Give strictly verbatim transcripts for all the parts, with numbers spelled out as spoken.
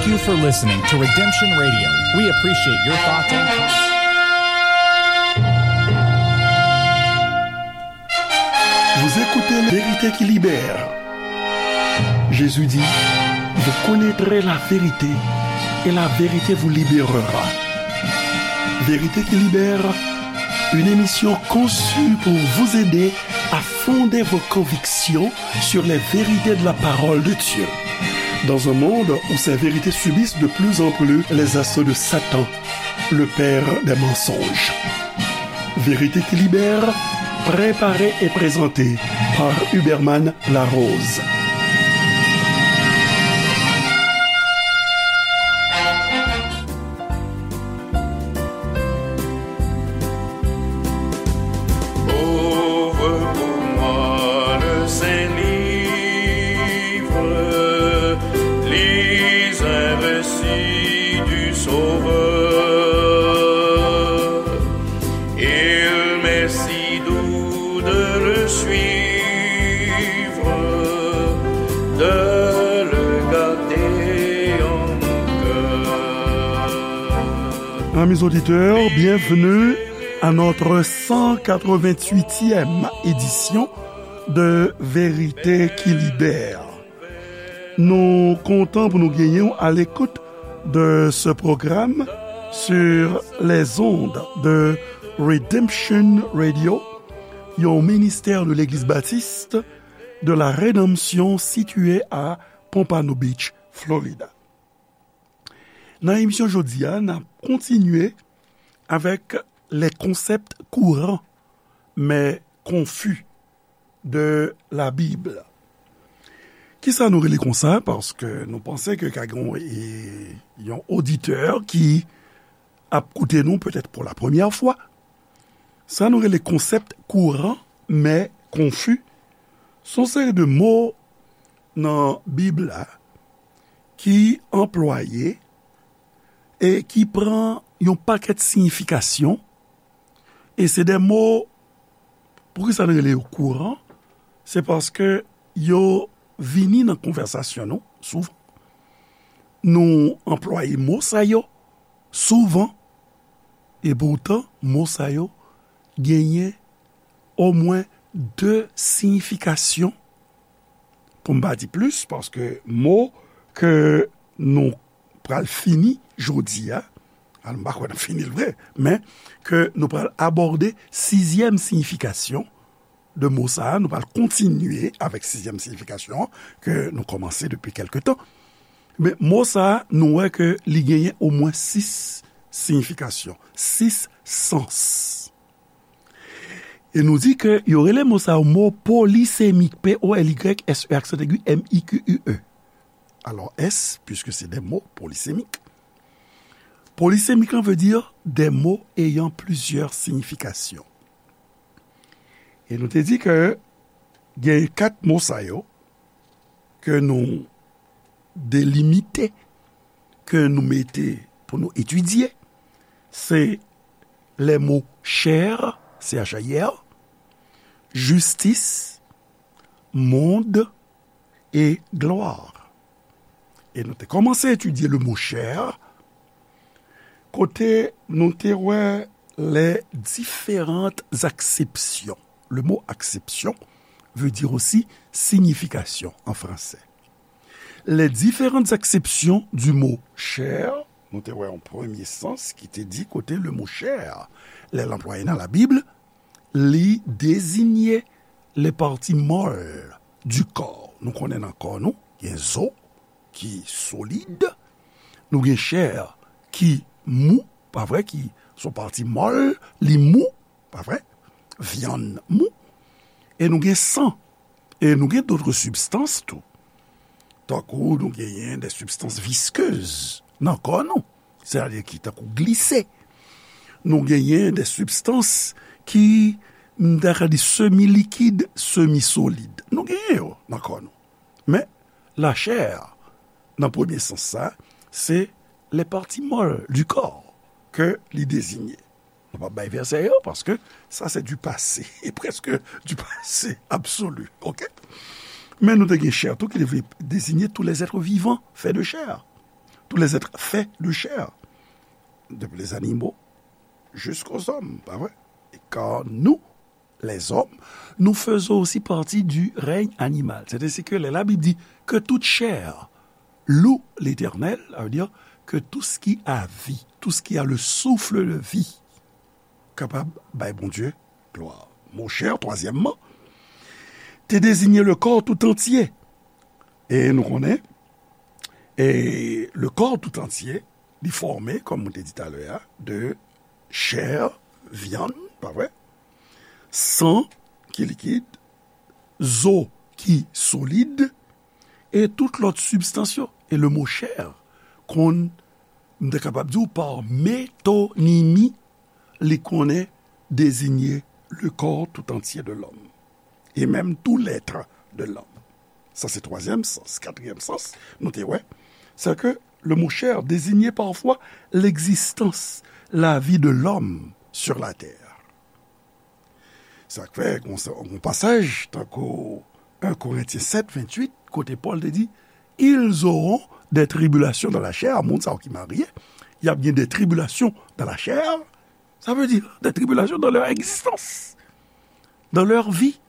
Thank you for listening to Redemption Radio. We appreciate your thoughts and comments. Vous écoutez La Vérité qui libère. Jésus dit, vous connaîtrez la vérité et la vérité vous libérera. Vérité qui libère, une émission conçue pour vous aider à fonder vos convictions sur les vérités de la parole de Dieu. Dans un monde où ces vérités subissent de plus en plus les assauts de Satan, le père des mensonges. Vérité qui libère, préparée et présentée par Huberman Larose. Ouvre pour moi le Saint-Livre, lis un récit du Sauveur. Il m'est si doux de le suivre, de le garder en mon cœur. Amis auditeurs, bienvenue à notre cent quatre-vingt-huitième édition de Vérité qui libère. Nou kontan pou nou genyen w à l'écoute de ce programme sur les ondes de Redemption Radio, yon ministè de Legliz Batis de la Redanmsyon sitiye a Pompano Beach, Florida. Nan emisyon jodi a, n ap kontinye avec les concepts courants mais confus de la Bible. Kisa nou rele konsa? Paske nou panse ke ka gen, e, yon oditè ki ap koute nou petèt pou la premyè fwa. Sa nou rele konsèp kouran, men konfi. Se yon seri de mo nan Bib la ki anplwaye e ki pran yon pakèt siyifikasyon. E se de mo, poukisa nou rele yo kouran? Se paske yo vini nan konvèsasyon nou souvan. Nou anplwaye mo sa yo souvan. E poutan, mo sa yo genyen omwen de siyifikasyon. Pou m pa di plis, paske mo ke nou pral fini jodi a, al, m pa kwè n ap fini l vre, men ke nou pral abòde sizyèm siyifikasyon de mo sa a, nou pral kontinye avèk sizyèm siyifikasyon an ke nou kòmanse depi kèlke tan. Men mo sa a, nou wè ke li genyen omwen sis siyifikasyon, sis sans. E nou di ke yo rele mo sa yo mo polisemik, P O L Y S E aksan egi, M I Q U E. Alors, S, puisque c'est des mots polysémiques. Polisemik an veut dire des mots ayant plusieurs significations. E nou te di ke gen kat mo sa yo ke nou delimite, ke nou mete pou nou etidye, se les mots chair, C H A I R, justice, monde et gloire. E nou te kòmanse etidye le mot chair, kote nou te wè les différentes acceptions. Le mot acception veut dire aussi signification en français. Les différentes acceptions du mot chair, nou te wè yon premye sans ki te di kote le mot chair, lè l anplwaye nan Labib, li deziye les parties molles du corps. Nou konnen nan kò nou, gen zo ki solid, nou gen chè ki mou, pa vre, ki se yon pati mòl, li mou, pa vre, vyann mou, e nou gen san, e nou gen d'autres substances tou. Tankou nou genyen des substances visqueuses nan kò nou, sètadi ki tankou glise. Nou genyen des substances ki, m ta ka di, semi likid, semi solid. Nou genyen yo nan kò nou. Men, la chair, nan premye sans sa, se les parties molles du corps ke li deziye. Nou p ap bay vèsè yo, paske sa se du passé, e prèske du passé absolu, oke? Men nou te gen chè tou ki te vle deziye tous les êtres vivants faits de chair. tous les êtres faits de chair, depuis les animaux jusqu'aux hommes, pa vre? Et car nous, les hommes, nous faisons aussi partie du règne animal. C'est ainsi que la Bible dit que toute chair loue l'Éternel, ça veut dire que tout ce qui a vie, tout ce qui a le souffle de vie, kapab bay Bondye glwa. Mo chè, twazyèmman, te deziye le corps tout entier. E nou konnen, e le corps tout entier, li fòme, kòm mwen te di talè a, de chè, vyann, pa vre? San ki likid, zo ki solid, e tout lòt sibstans yo. E le mo chè konn, m te kapab di w, pa metonimi, li konnen deziye le corps tout entier de l'homme, et même tout l'être de l'homme. Sa se twazyèm sans. Katriyèm sans, nou te wè, c'est que le mot chair désignait parfois l'existence, la vie de l'homme sur la terre. Sa k fè, gon sa, gon pasaj, tankou un Corinthiens sept, vingt-huit, kote Pòl te di, ils auront des tribulations dans la chair, moun sa yo ki marye, y ap gen des tribulations dans la chair, ça veut dire des tribulations dans leur existence, dans leur vie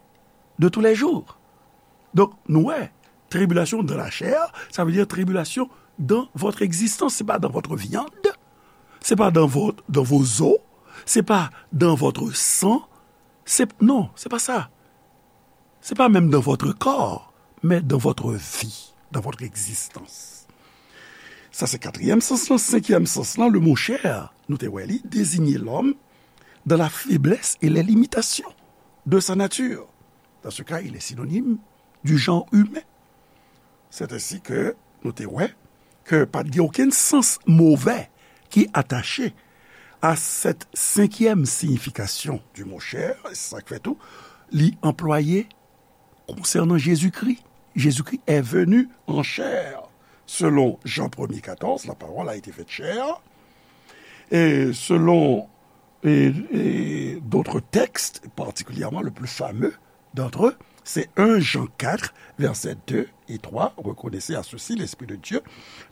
de tous les jours. Donk, nou wè, tribulation dans la chair, ça veut dire tribulation dans votre existence, c'est pas dans votre viande, c'est pas dans votre, dans vos os, c'est pas dans votre sang, c'est, non, c'est pas ça. C'est pas même dans votre corps, mais dans votre vie, dans votre existence. Sa se katriyèm sans lan. Senkyèm sans lan, le mot chair, nou te wè li, désigne l'homme dans la faiblesse et les limitations de sa nature. Dans ce cas, il est synonyme du genre humain. C'est ainsi que nou te wè ke pa t gen okenn sans move ki atache à cette cinquième signification du mot chair, e se sa k fè tou, li anplwaye konsènan Jezikri. Jésus-Christ est venu en chair. Selon Jean premier quatorze, la parole a été faite chair. Et selon et, et d'autres textes, particulièrement le plus fameux d'entre eux, c'est un Jean quatre, versets deux et trois. Reconnaissez à ceci l'Esprit de Dieu.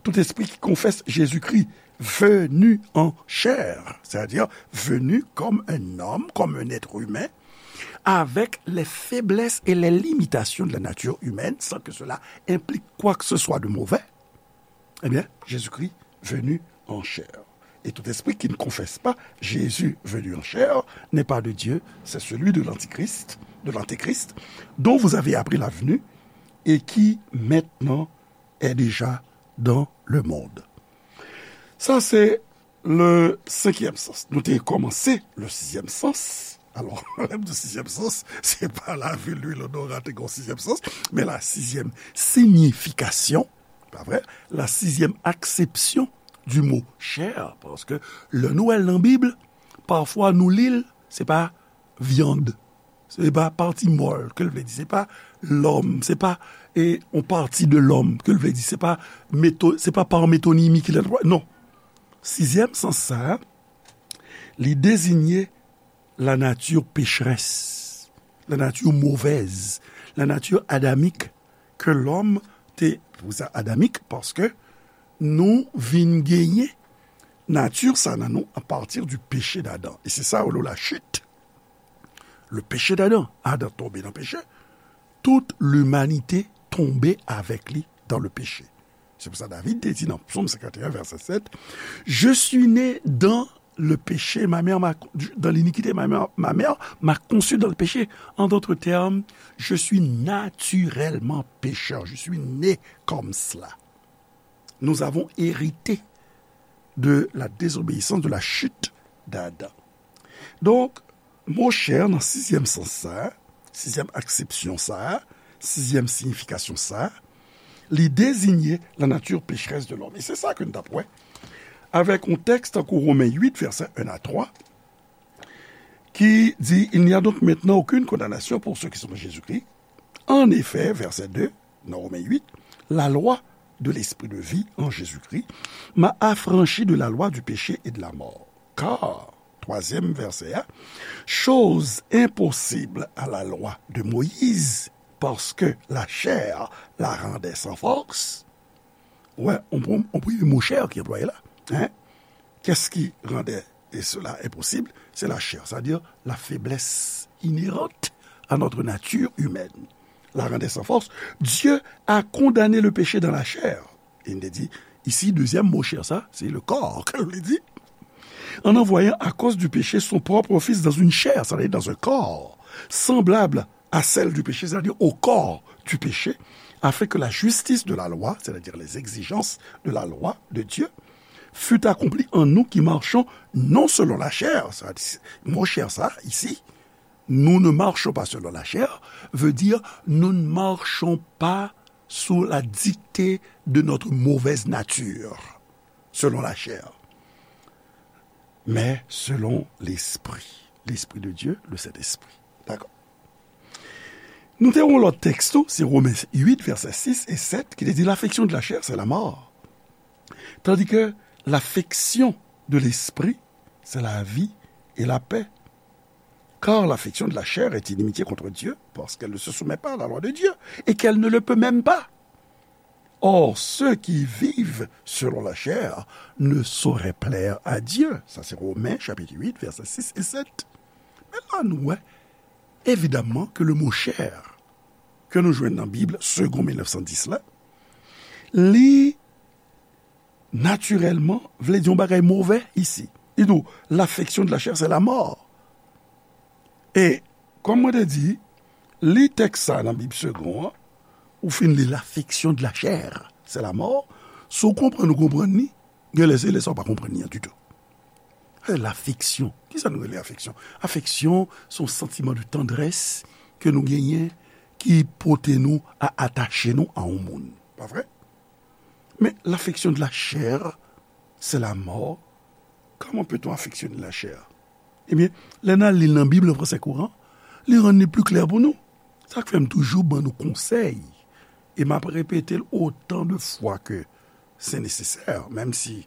Tout esprit qui confesse Jésus-Christ venu en chair, c'est-à-dire venu comme un homme, comme un être humain, avec les faiblesses et les limitations de la nature humaine, sans que cela implique quoi que ce soit de mauvais, eh bien, Jésus-Christ venu en chair. Et tout esprit qui ne confesse pas Jésus venu en chair n'est pas de Dieu, c'est celui de l'Antichrist, de l'Antéchrist, dont vous avez appris la venue et qui maintenant est déjà dans le monde. Sa se le senkyèm sans. Nou te kòmanse le sizyèm sans. Alò, lè m di sizyèm sans, se pa lavil lwil odoran te gen yon sizyèm sans, men la sizyèm signification, pa vre? La sizyèm aksepsyon du mot chair, paske lè nou wè l nan Bib, pafwa nou li l, se pa vyann, se pa pati mòl ke l vle di, se pa lòm, se pa e, yon pati de lòm ke l vle di, se pa meto, se pa pa metonimi ki lè, non. Sizyèm sans sa a, li deziye la nature pécheresse, la nature mauvaise, la nature adamique ke lòm te, pou sa adamique, paske nou vin genyen nati sa nan nou a pati du péché d'Adam. E se sa yo rele la chute. Le péché d'Adam. Adan tonbe nan peche. Toute l'humanité tombe avec lui dans le péché. Se pou sa David te di nan Psaume cinquante et un, verset sept, je suis né dans le péché, ma mère m'a, dans l'iniquité, ma mère, ma mère m'a conçu dans le péché. En d'autres termes, je suis naturellement pécheur, je suis né comme cela. Nous avons hérité de la désobéissance, de la chute d'Adam. Donk, mo chè nan sizyèm sans sa a, sizyèm aksepsyon sa a, sizyèm siyifikasyon sa a, li deziye la nature pécheresse de l'homme. E se sa ke n t ap wè avèk yon tèks tankou Women uit, vèsè un à trois, ki di, il n'y a donc maintenant aucune condamnation pour ceux qui sont en Jésus-Christ. En effet, verset deux, dans Romains huit, la loi de l'esprit de vie en Jésus-Christ m'a affranchi de la loi du péché et de la mort. Car, troisième verset, hein, chose impossible à la loi de Moïse, parce que la chair la rendait sans force, Ouais, on, on, on primi mo chè ki anplwaye la. Hein? Qu'est-ce qui rendait et cela impossible? C'est la chair, c'est-à-dire la faiblesse inhérente à notre nature humaine. La rendait sans force. Dieu a condamné le péché dans la chair. E n te di, isi, dezyèm mo chè sa, se le corps, ke nou di. En envoyant à cause du péché son propre Fils dans une chair, c'est-à-dire dans un corps, semblable à celle du péché, c'est-à-dire au corps du péché, afin que la justice de la loi, c'est-à-dire les exigences de la loi de Dieu, fût accomplie en nous qui marchons non selon la chair. Sa di, mo chè sa, isi, nous ne marchons pas selon la chair, veut dire nous ne marchons pas sous la dictée de notre mauvaise nature, selon la chair, mais selon l'Esprit, l'Esprit de Dieu, le Saint-Esprit. D'accord. Nou te yon lòt tèks tou, se Romen uit, vèsè sis e sèt, ki te di, l'affection de la chair, c'est la mort. Tandis que l'affection de l'esprit, c'est la vie et la paix. Car l'affection de la chair est inimitié contre Dieu, parce qu'elle ne se soumet pas à la loi de Dieu, et qu'elle ne le peut même pas. Or, ceux qui vivent selon la chair ne sauraient plaire à Dieu. Sa se Romen chapit uit, vèsè sis e sèt. Men la nou wè, evidaman, ke le mo chair ke nou jwenn nan Bib Segond mil nèf san dis la, li natirèlman vle di yon bagay move isi. Li di w, l'affection de la chair, c'est la mort. E, kòm mwen te di, li tèks sa nan Bib Segond an, ou fin li l'affection de la chair, c'est la mort. Si w konprann, ou konprann li, gen lè se lè sa w pa konprann li an ditou. E l'affection, kisa nou rele afeksyon? Afeksyon se yon santiman de tandrès ke nou genyen ki pote nou a atache nou a yon moun. Pa vre? Men l'affection de la chair, c'est la mort. Comment peut-on affectionner la chair? Ebyen, lè n al li l nan Bib an fransè kouran, li rann li pli klè pou nou. Sa k fè m toujou ban nou konsèy, e m ap repete l otan de fwa ke se nesesè, menm si,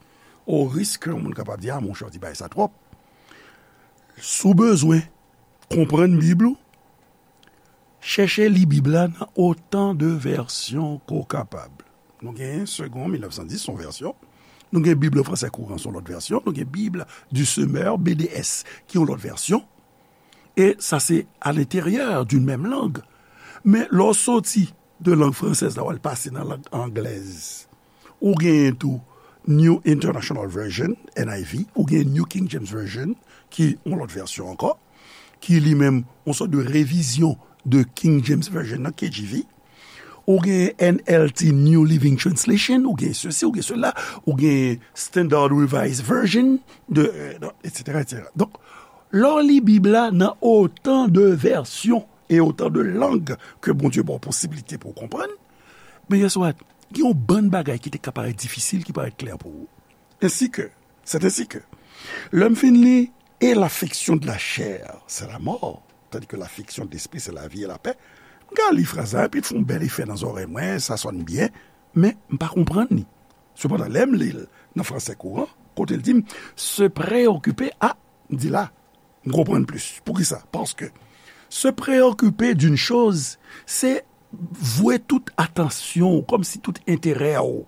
o risk ke yon moun kapab di, a, monchè, w di bagay sa twòp. Si w bezwen konprann Bib ou, chèche li Bib la nan otan de vèsyon ke w kapab. Nou gen Segond mil nèf san dis, se yon vèsyon. Nou gen Bib an fransè kouran, se yon lòt vèsyon. Nou gen Bib du Semeur, B D S, ki yon lòt vèsyon. E sa se à l'intérieur d'une même langue. Men lè w soti de lang fransèz la, w al pase nan lang anglèz, ou genyen tou New International Version, N I V, ou gen New King James Version, ki yon lòt vèsyon ankò, ki li menm yon sòt de revizyon de King James Version nan, K J V. Ou gen N L T, New Living Translation, ou gen sesi, ou gen sela, ou gen Standard Revised Version, de, euh, etsetera, etsetera. Donk, lè w li Bib la nan otan de vèsyon e otan de lang ke Bondye ba w posibilite pou w konprann, men guess what? Gen yon bann bagay ki te ka parèt difisil, ki parèt klè pou ou. Ainsi que, c'est ainsi que, lè m fin li, et l'affection de la chair, c'est la mort, tandis que l'affection de l'esprit, c'est la vie et la paix. M ka li fraz la, epi l fè yon bèl efè nan zòrèy mwen, sa sòn byen, men m pa konprann li. Sepandan, lè m li l nan fransè kouran, kote l di m, se preyokipe, a, m di la, m konprann plis. Poukisa? Paske se preyokipe d'une chose, se vwe tout atansyon w, kòmsi tout enterè w,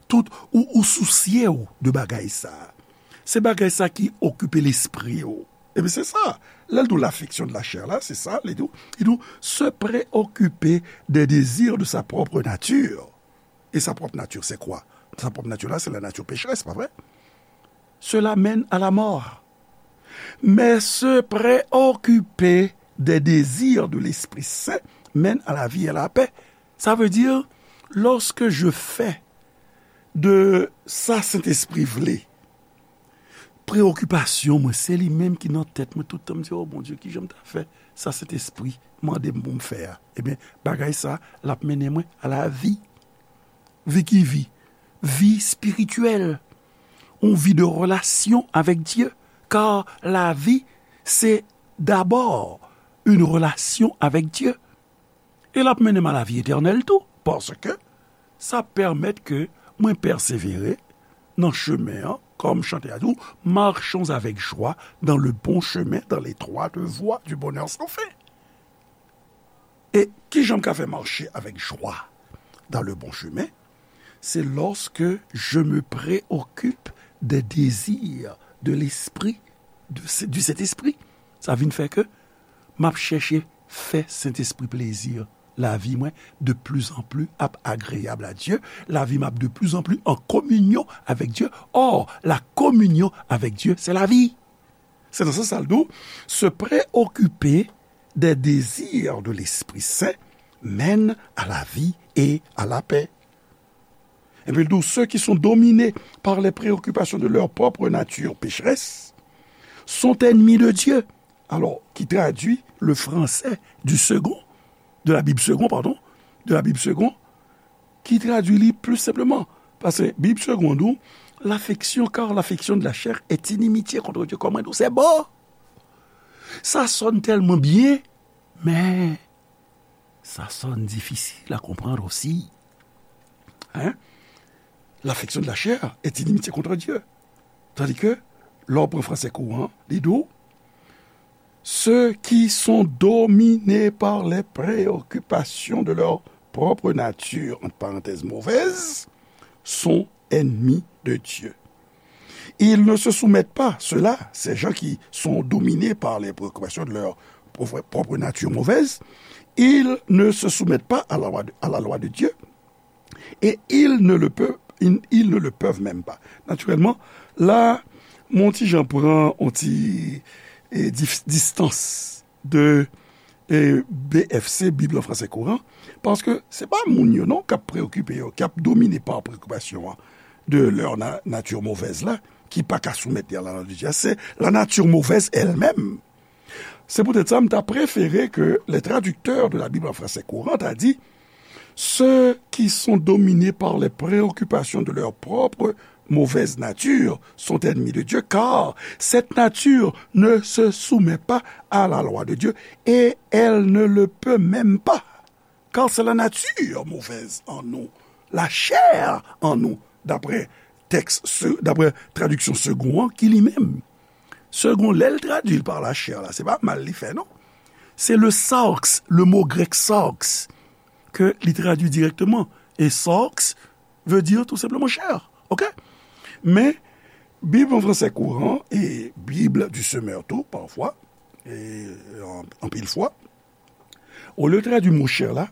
tout, ou, ou sousye w de bagay sa. Se bagay sa ki okipe lespri w. Ebyen, se sa. Lè l di w l'affection de la chair la, se sa, li di w, li di w, se preyokipe des désirs de sa propre nature. Et sa propre nature, c'est quoi? Sa propre nature la, se la nature pécheresse, pa vre? Cela mène à la mort. Mais se préoccuper des désirs de l'Esprit Saint mène à la vie et à la paix. Sa vle di, lorsque je fais de sa Sentespri vle, preyokipasyon mwen, se li menm ki nan tèt mwen tout tan. M di, o Bondye, kijan m ta fè sa Sentespri mande m pou m fè a? Ebyen, bagay sa, l ap mennen mwen a lavi. Vi ki vi? Vi espirityèl. Yon vi de relasyon avèk Dye. Kar lavi, se dabò yon relasyon avèk Dye. E l ap mennen m a lavi etènèl tou, paske sa pèmèt ke mwen pèsevere nan chemen an, kòm chante a di w, marchons avec joie dans le bon chemin, dans l'étroite voie du bonheur sans fin. E kijan m ka fè mache avèk jwa dans le bon chemin? c'est lorsque je me préoccupe des désirs de l'esprit, de, du Saint-Esprit. Sa vin fè ke m ap chèche fè Sentespri plezi. Lavi mwen de plus en plus ap agréable à Dieu. Lavi m ap de plus en plus en communion avec Dieu. Or, la communion avec Dieu, c'est la vie. Se nan sans sa l di w, se preokipe des désirs de l'Esprit Saint mène à la vie et à la paix. Epi l di w, ceux qui sont dominés par les préoccupations de leur propre nature pécheresse sont ennemis de Dieu. Alors, qui traduit le français du second, de la Bible Segond, pardon, de la Bible Segond, ki tradui li pli senpleman. Paske Bib Segond di w, l'affection, car l'affection de la chair est inimitié contre Dieu. Kòman di w, se bon. Sa sòn tèlman byen, men sa sòn difisil a konprann osi. Hein? L'affection de la chair est inimitié contre Dieu. Tandis que, lè w pran fransè kouran, li di w, ceux qui sont dominés par les préoccupations de leur propre nature, entre parenthèses, mauvaise, sont ennemis de Dieu. Ils ne se soumettent pas, ceux-là, ces gens qui sont dominés par les préoccupations de leur propre, propre nature mauvaise, ils ne se soumettent pas à la loi de, à la loi de Dieu, et ils ne le peuvent, ils, ils ne le peuvent même pas. Naturellement, la, m on ti jan pran on ti, eh, dif-, distance de, eh, B F C, Bib an fransè kouran, paske se pa moun yo non k ap preokipe yo, k ap domine pa preokipasyon an de leur na-, nature mauvaise la, ki pa ka soumèt li a la lwa de Dye, se la nature mauvaise elle-même. Se poutèt sa, m ta prefere ke les traducteurs de la Bible en français courant ta di, ceux qui sont dominés par les préoccupations de leur propre mauvaise nature sont ennemis de Dieu, car cette nature ne se soumet pas à la loi de Dieu et elle ne le peut même pas. Car c'est la nature mauvaise en nous, la chair en nous, d'après texte, d'après traduction Segond an, ki li menm. Segond, lè l tradui l par la chair la, se pa mal li fè, non. C'est le sarx, le mot grec sarx, ke li tradui dirèkteman. E sarx veut dire tout simplement chair. OK? Men, Bib an fransè kouran e Bib du Semeur tou, pafwa, e an, anpil fwa, olye tradui mo chair la,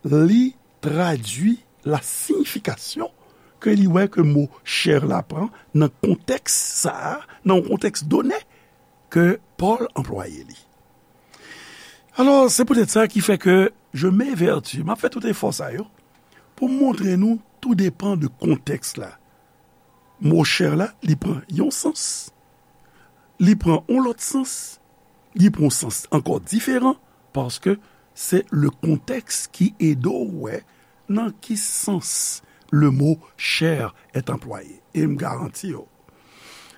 li tradui la siyifikasyon ke li wè ke mo chair la pran nan kontèks sa a, nan yon kontèks done ke Pòl anplwaye li. Alò, se poutèt sa ki fè ke je m'évertue, m ap fè tout efò sa yo pou m montre nou, tou depan de kontèks la. Mo chair la, li pran yon sans, li pran yon lòt sans, li pran yon sans ankò diferan, paske se le contexte ki ede w wè nan ki sans le mot chair est employé. E m garanti w,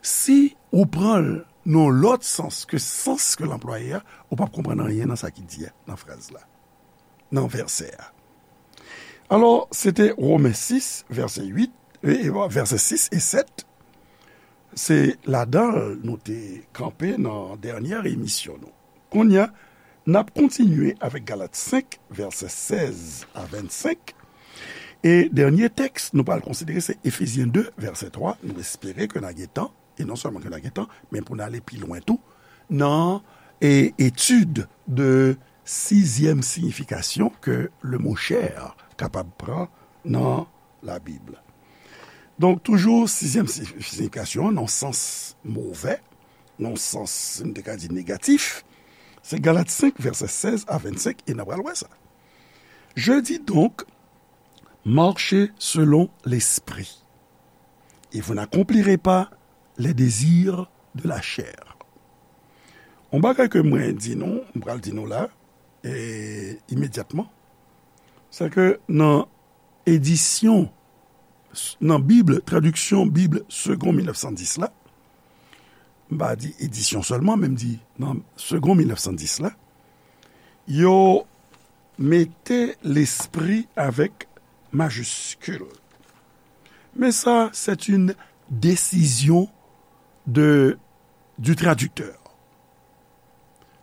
si ou pran l nan lòt sans ke sans ke l anplwaye a, ou p ap konprann anyen nan sa ki di a, nan fraz la, nan vèsè a. Alò, se te Women sis, vèsè uit, e, e, vèsè sis e sèt. Se ladan l nou te kanpe nan dènyè emisyon nou. Kounye a, n ap kontinye avèk Galat senk, vèsè sèz a vennsenk. E dènye tèks nou pral konsidere se Efezyen de, vèsè twa. Nou espere ke n a gen tan, e non sèlman ke n a gen tan, men pou n ale pi lwen tou nan, e, etid de sizyèm siyifikasyon ke le mo chair kapab pran nan Labib. Donk, toujou, sizyèm si-, siyifikasyon an, nan sans movè, nan sans, nou te ka di, negatif, se Galat senk, vèsè sèz a vennsenk, e n a pral wè sa. Je dis donc, marchez selon l'esprit, et vous n'accomplirez pas les désirs de la chair. Yon bagay ke mwen di nou, m pral di nou la, e, imedyatman, se ke nan edisyon, nan Bib, tradiksyon Bib Segond mil nèf san dis la, m pa di edisyon sèlman, men m di nan Segond mil nèf san dis la, yo mete lespri avèk majiskil. Men sa, c'est une décision de, du traducteur.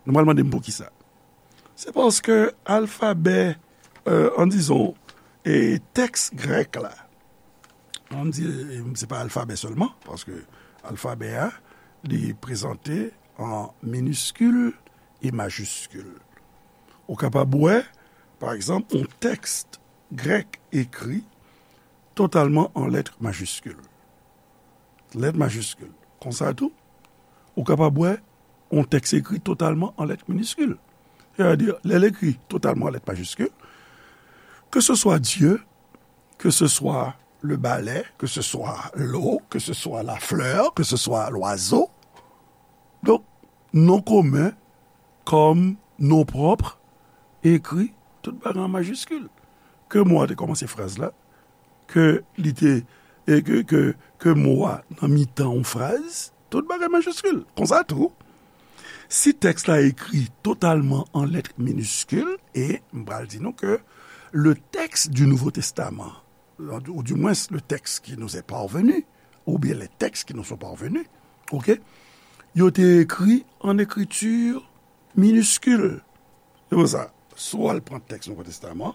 Nou pral mande m poukisa. Se paske alfabè, euh, an dizon, e tèks grèk la, An di, se pa alfabè sèlman, paske alfabè a, li prezante an miniskil e majiskil. Ou kapab wè, pa egzanp, yon tèks grèk ekri totalman an lèt majiskil. Lèt majiskil. Konsa tou, ou kapab wè yon tèks ekri totalman an lèt miniskil. Sètadi, lè l ekri totalman an lèt majiskil, ke se swa Dye, que ce soit le balai, que ce soit l'eau, que ce soit la fleur, que ce soit l'oiseau. Donk, non komen kòm non pwòp ekri tout bagay an majiskil. Ke mo a te kòmanse fraz la, ke li te, e ke, ke, ke mo a nan mitan yon fraz, tout bagay majiskil. Konsa tou, si tèks la ekri totalman an lèt miniskil, e m pral di nou ke le texte du Nouveau Testament, ou du moins le texte qui nous est parvenu, oubyen les textes qui nous sont parvenus, ok, yo te ekri an ekriti miniskil. Se pou sa, si w al pran tèks Nouvo Testaman,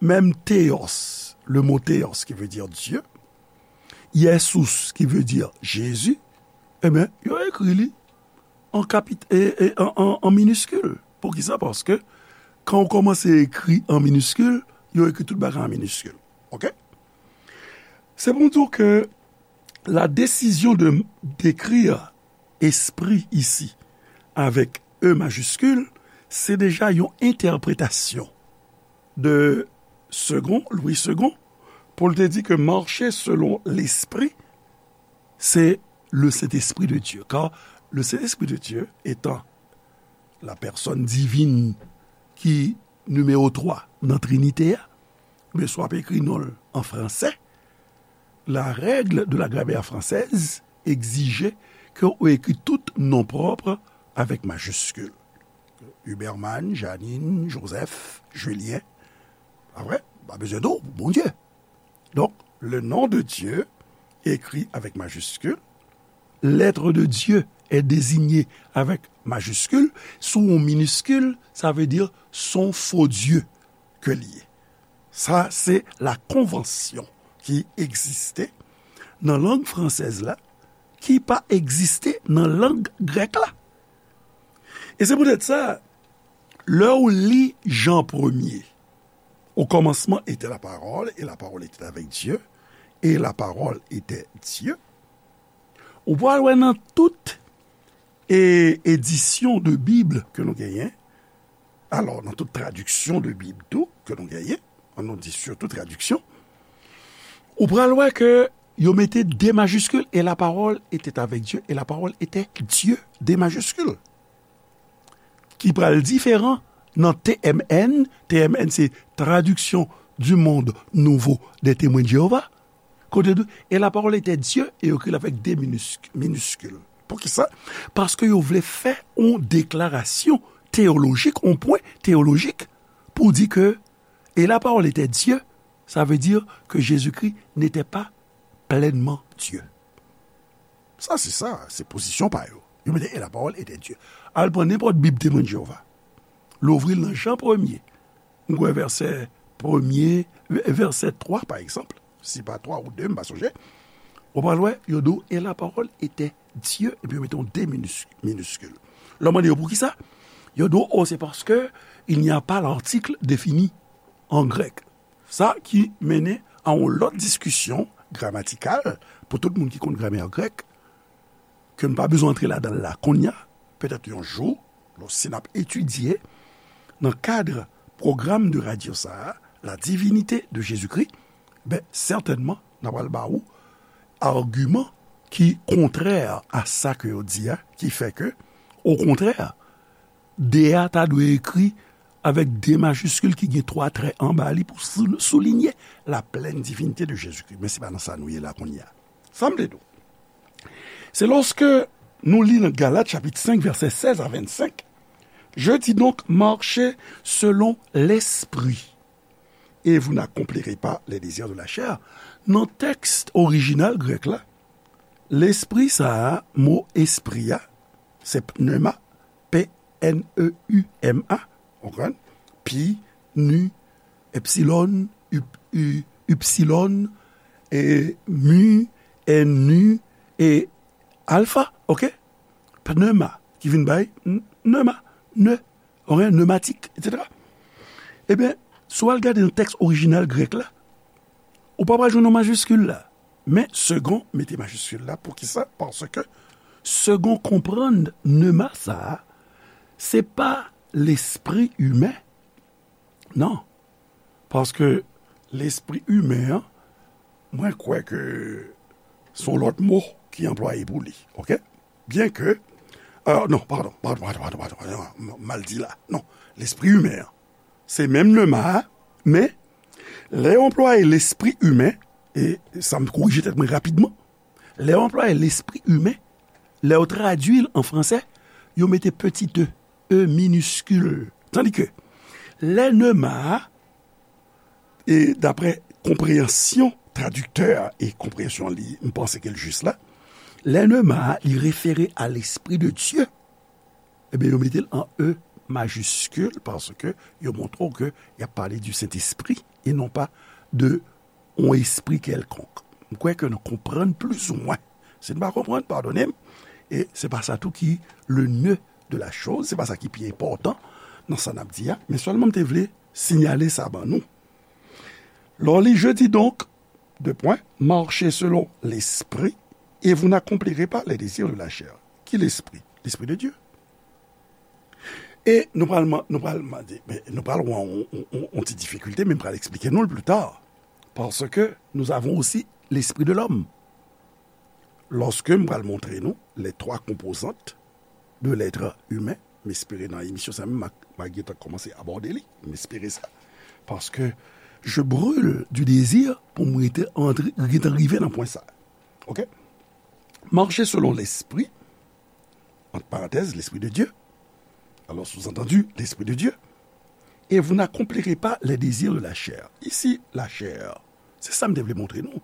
menm theos, le mot theos qui veut dire Dieu, Jesus qui veut dire Jésus, ebyen, yo ekri li an kapit, e, e, an, an, an miniskil. Poukisa? Paske kan w kòmanse ekri an miniskil, yo ekri tout bagay an miniskil. Ok? Se pou m di w ke la décision de d'écrire esprit ici avec E majiskil, se deja yon entèpretasyon de Segond, Louis Segond, pou l te di ke mache selon lespri, c'est le Saint-Esprit de Dieu. Car le Saint-Esprit de Dieu étant la personne divine ki nimewo twa nan Trinite a, men si w ap ekri non l an fransè, la règle de la grammaire française exige ke w ekri tout non pwòp avèk majiskil. Huberman, Janine, Joseph, Julien. Pa vre? Pa bezwen di w, Bondye. Donk, le nom de Dieu, écrit avec majuscule, l'être de Dieu est désigné avec majuscule, si w miniskil, sa vle di s on fo dye ke l ye. Sa, se la konvansyon ki egziste nan lang fransèz la, ki pa egziste nan lang grèk la. E se poutèt sa, lè w li Jan premye, au commencement était la parole, et la parole était avec Dieu, et la parole était Dieu. Ou pral wè nan tout, e, edisyon de Bib ke nou genyen, alò, nan tout tradiksyon de Bib tou ke nou genyen, an nou di surtout tradiksyon, ou pral wè ke yo mete de majiskil, et la parole était avec Dieu, et la parole était Dieu, de majiskil. Ki pral diferan nan T M N. T M N se Traduction du Monde Nouveau des Témoins de Jéhovah. Kote tou, et la parole était Dieu, e yo ekri l avèk de minisk-, miniskil. Poukisa? Paske yo vle fè yon deklarasyon teyolojik, yon pwen teyolojik, pou di ke, et la parole était Dieu, sa vle di ke Jezikri n'était pas pleinement Dieu. Sa se sa, se pozisyon pa yo. Yo mete, et la parole était Dieu. Al pran nenpòt Bib Temwen de Jewova. Louvri l nan Jan premye. M kwè vèsè premye, vèsè twa, pa egzanp. Si pa twa ou de, m pa sonje. Ou pral wè, yo di w, et la parole était Dieu, epi yo mete yon de minis-, miniskil. Lè w mande yo poukisa, yo di w, oh, c'est parce que il n'y a pas l'article défini en grec. Sa ki mennen a yon lòt diskisyon gramatikal pou tout moun ki konn gramè grèk, ke n pa bezwen antre ladan l la kounye a, petèt yon jou, lòske n ap etidye nan kad pwogram de radyo sa a, La divinité de Jésus-Christ, ben, sètènman, n a pral ba ou agiman ki kontrè a sa ke yo di a, ki fè ke, okontrè, de a ta dwe ekri avèk de majiskil ki gen twa trè anba li pou sou-, soulinye la plèn divinite de Jezikri. Men se pa nan sa nou ye la kounye a. Sa m vle di w, se lòske nou li nan Galat chapit senk, vèsè sèz a vennsenk, Je dis donc, marchez selon l'esprit, et vous n'accomplirez pas les désirs de la chair. Nan tèks orijinal grèk la, lespri sa a, mo espri a, se pneuma, P N E U M A, w konprann? Pi, nu, epsilon, up-, u-, upsilon, e, mu, e, nu, e, alfa, oke? Pneuma, ki vin bay n-, pneuma, ne, oke, pneumatique, et cetera. Ebyen, si w al gade nan tèks orijinal grèk la, ou pa pral jwenn yon majiskil la. Men, Segond mete majiskil la. Poukisa? Paske Segond konprann pneuma sa a, se pa lespri imen. Non. Paske lespri imen an, mwen kwè ke se yon lòt mo ki anplwaye pou li. Oke? Byenke, euh, non, padon, padon, padon, padon, padon, padon, m-, mal di la. Non, lespri imen an, se menm pneuma a, men lè yo anplwaye lespri imen, e sa m korije tèt mwen rapidman, lè yo anplwaye lespri imen, lè yo tradui l an fransè, yo mete petit e, e miniskil. Tandike, lè pneuma a, e daprè konpreyansyon tradiktè a e konpreyansyon li, m panse ke l jis la, lè pneuma a, li refere a lespri de Dye, ebyen, yo mete l an e majiskil paske yo montre w ke y ap pale di Sentespri e non pa de yon espri kèlkonk. M kwè ke nou konprann plizoumwen. Si n pa konprann, padone m. E se pa sa tou ki le nœud de la chose, se pa sa ki pi enpòtan nan sa n ap di a, men sèlman m te vle siyale sa ban nou. Lè w li, je dis donc, deux points, marchez selon l'esprit, et vous n'accomplirez pas les désirs de la chair. Ki lespri? Lespri de Dye. E nou pral, nou pral mande, men nou pral wè yon, yon, yon, yon ti difikilte, men m pral eksplike nou l pli ta. Paske nous avons aussi l'esprit de l'homme. Lòske m pral montre nou les trois composantes de l'être humain, m espere nan emisyon sa menm, m a, m a gentan kòmanse abòde li, m espere sa. Paske je brûle du désir pou m rete antre, gentan rive nan pwen sa. Oke? Marchez selon l'esprit, entre parenthèses, l'esprit de Dieu. Alors, sous-entendu, l'esprit de Dieu. Et vous n'accomplirez pas les désirs de la chair. Isi, la chair, se sa m te vle montre nou.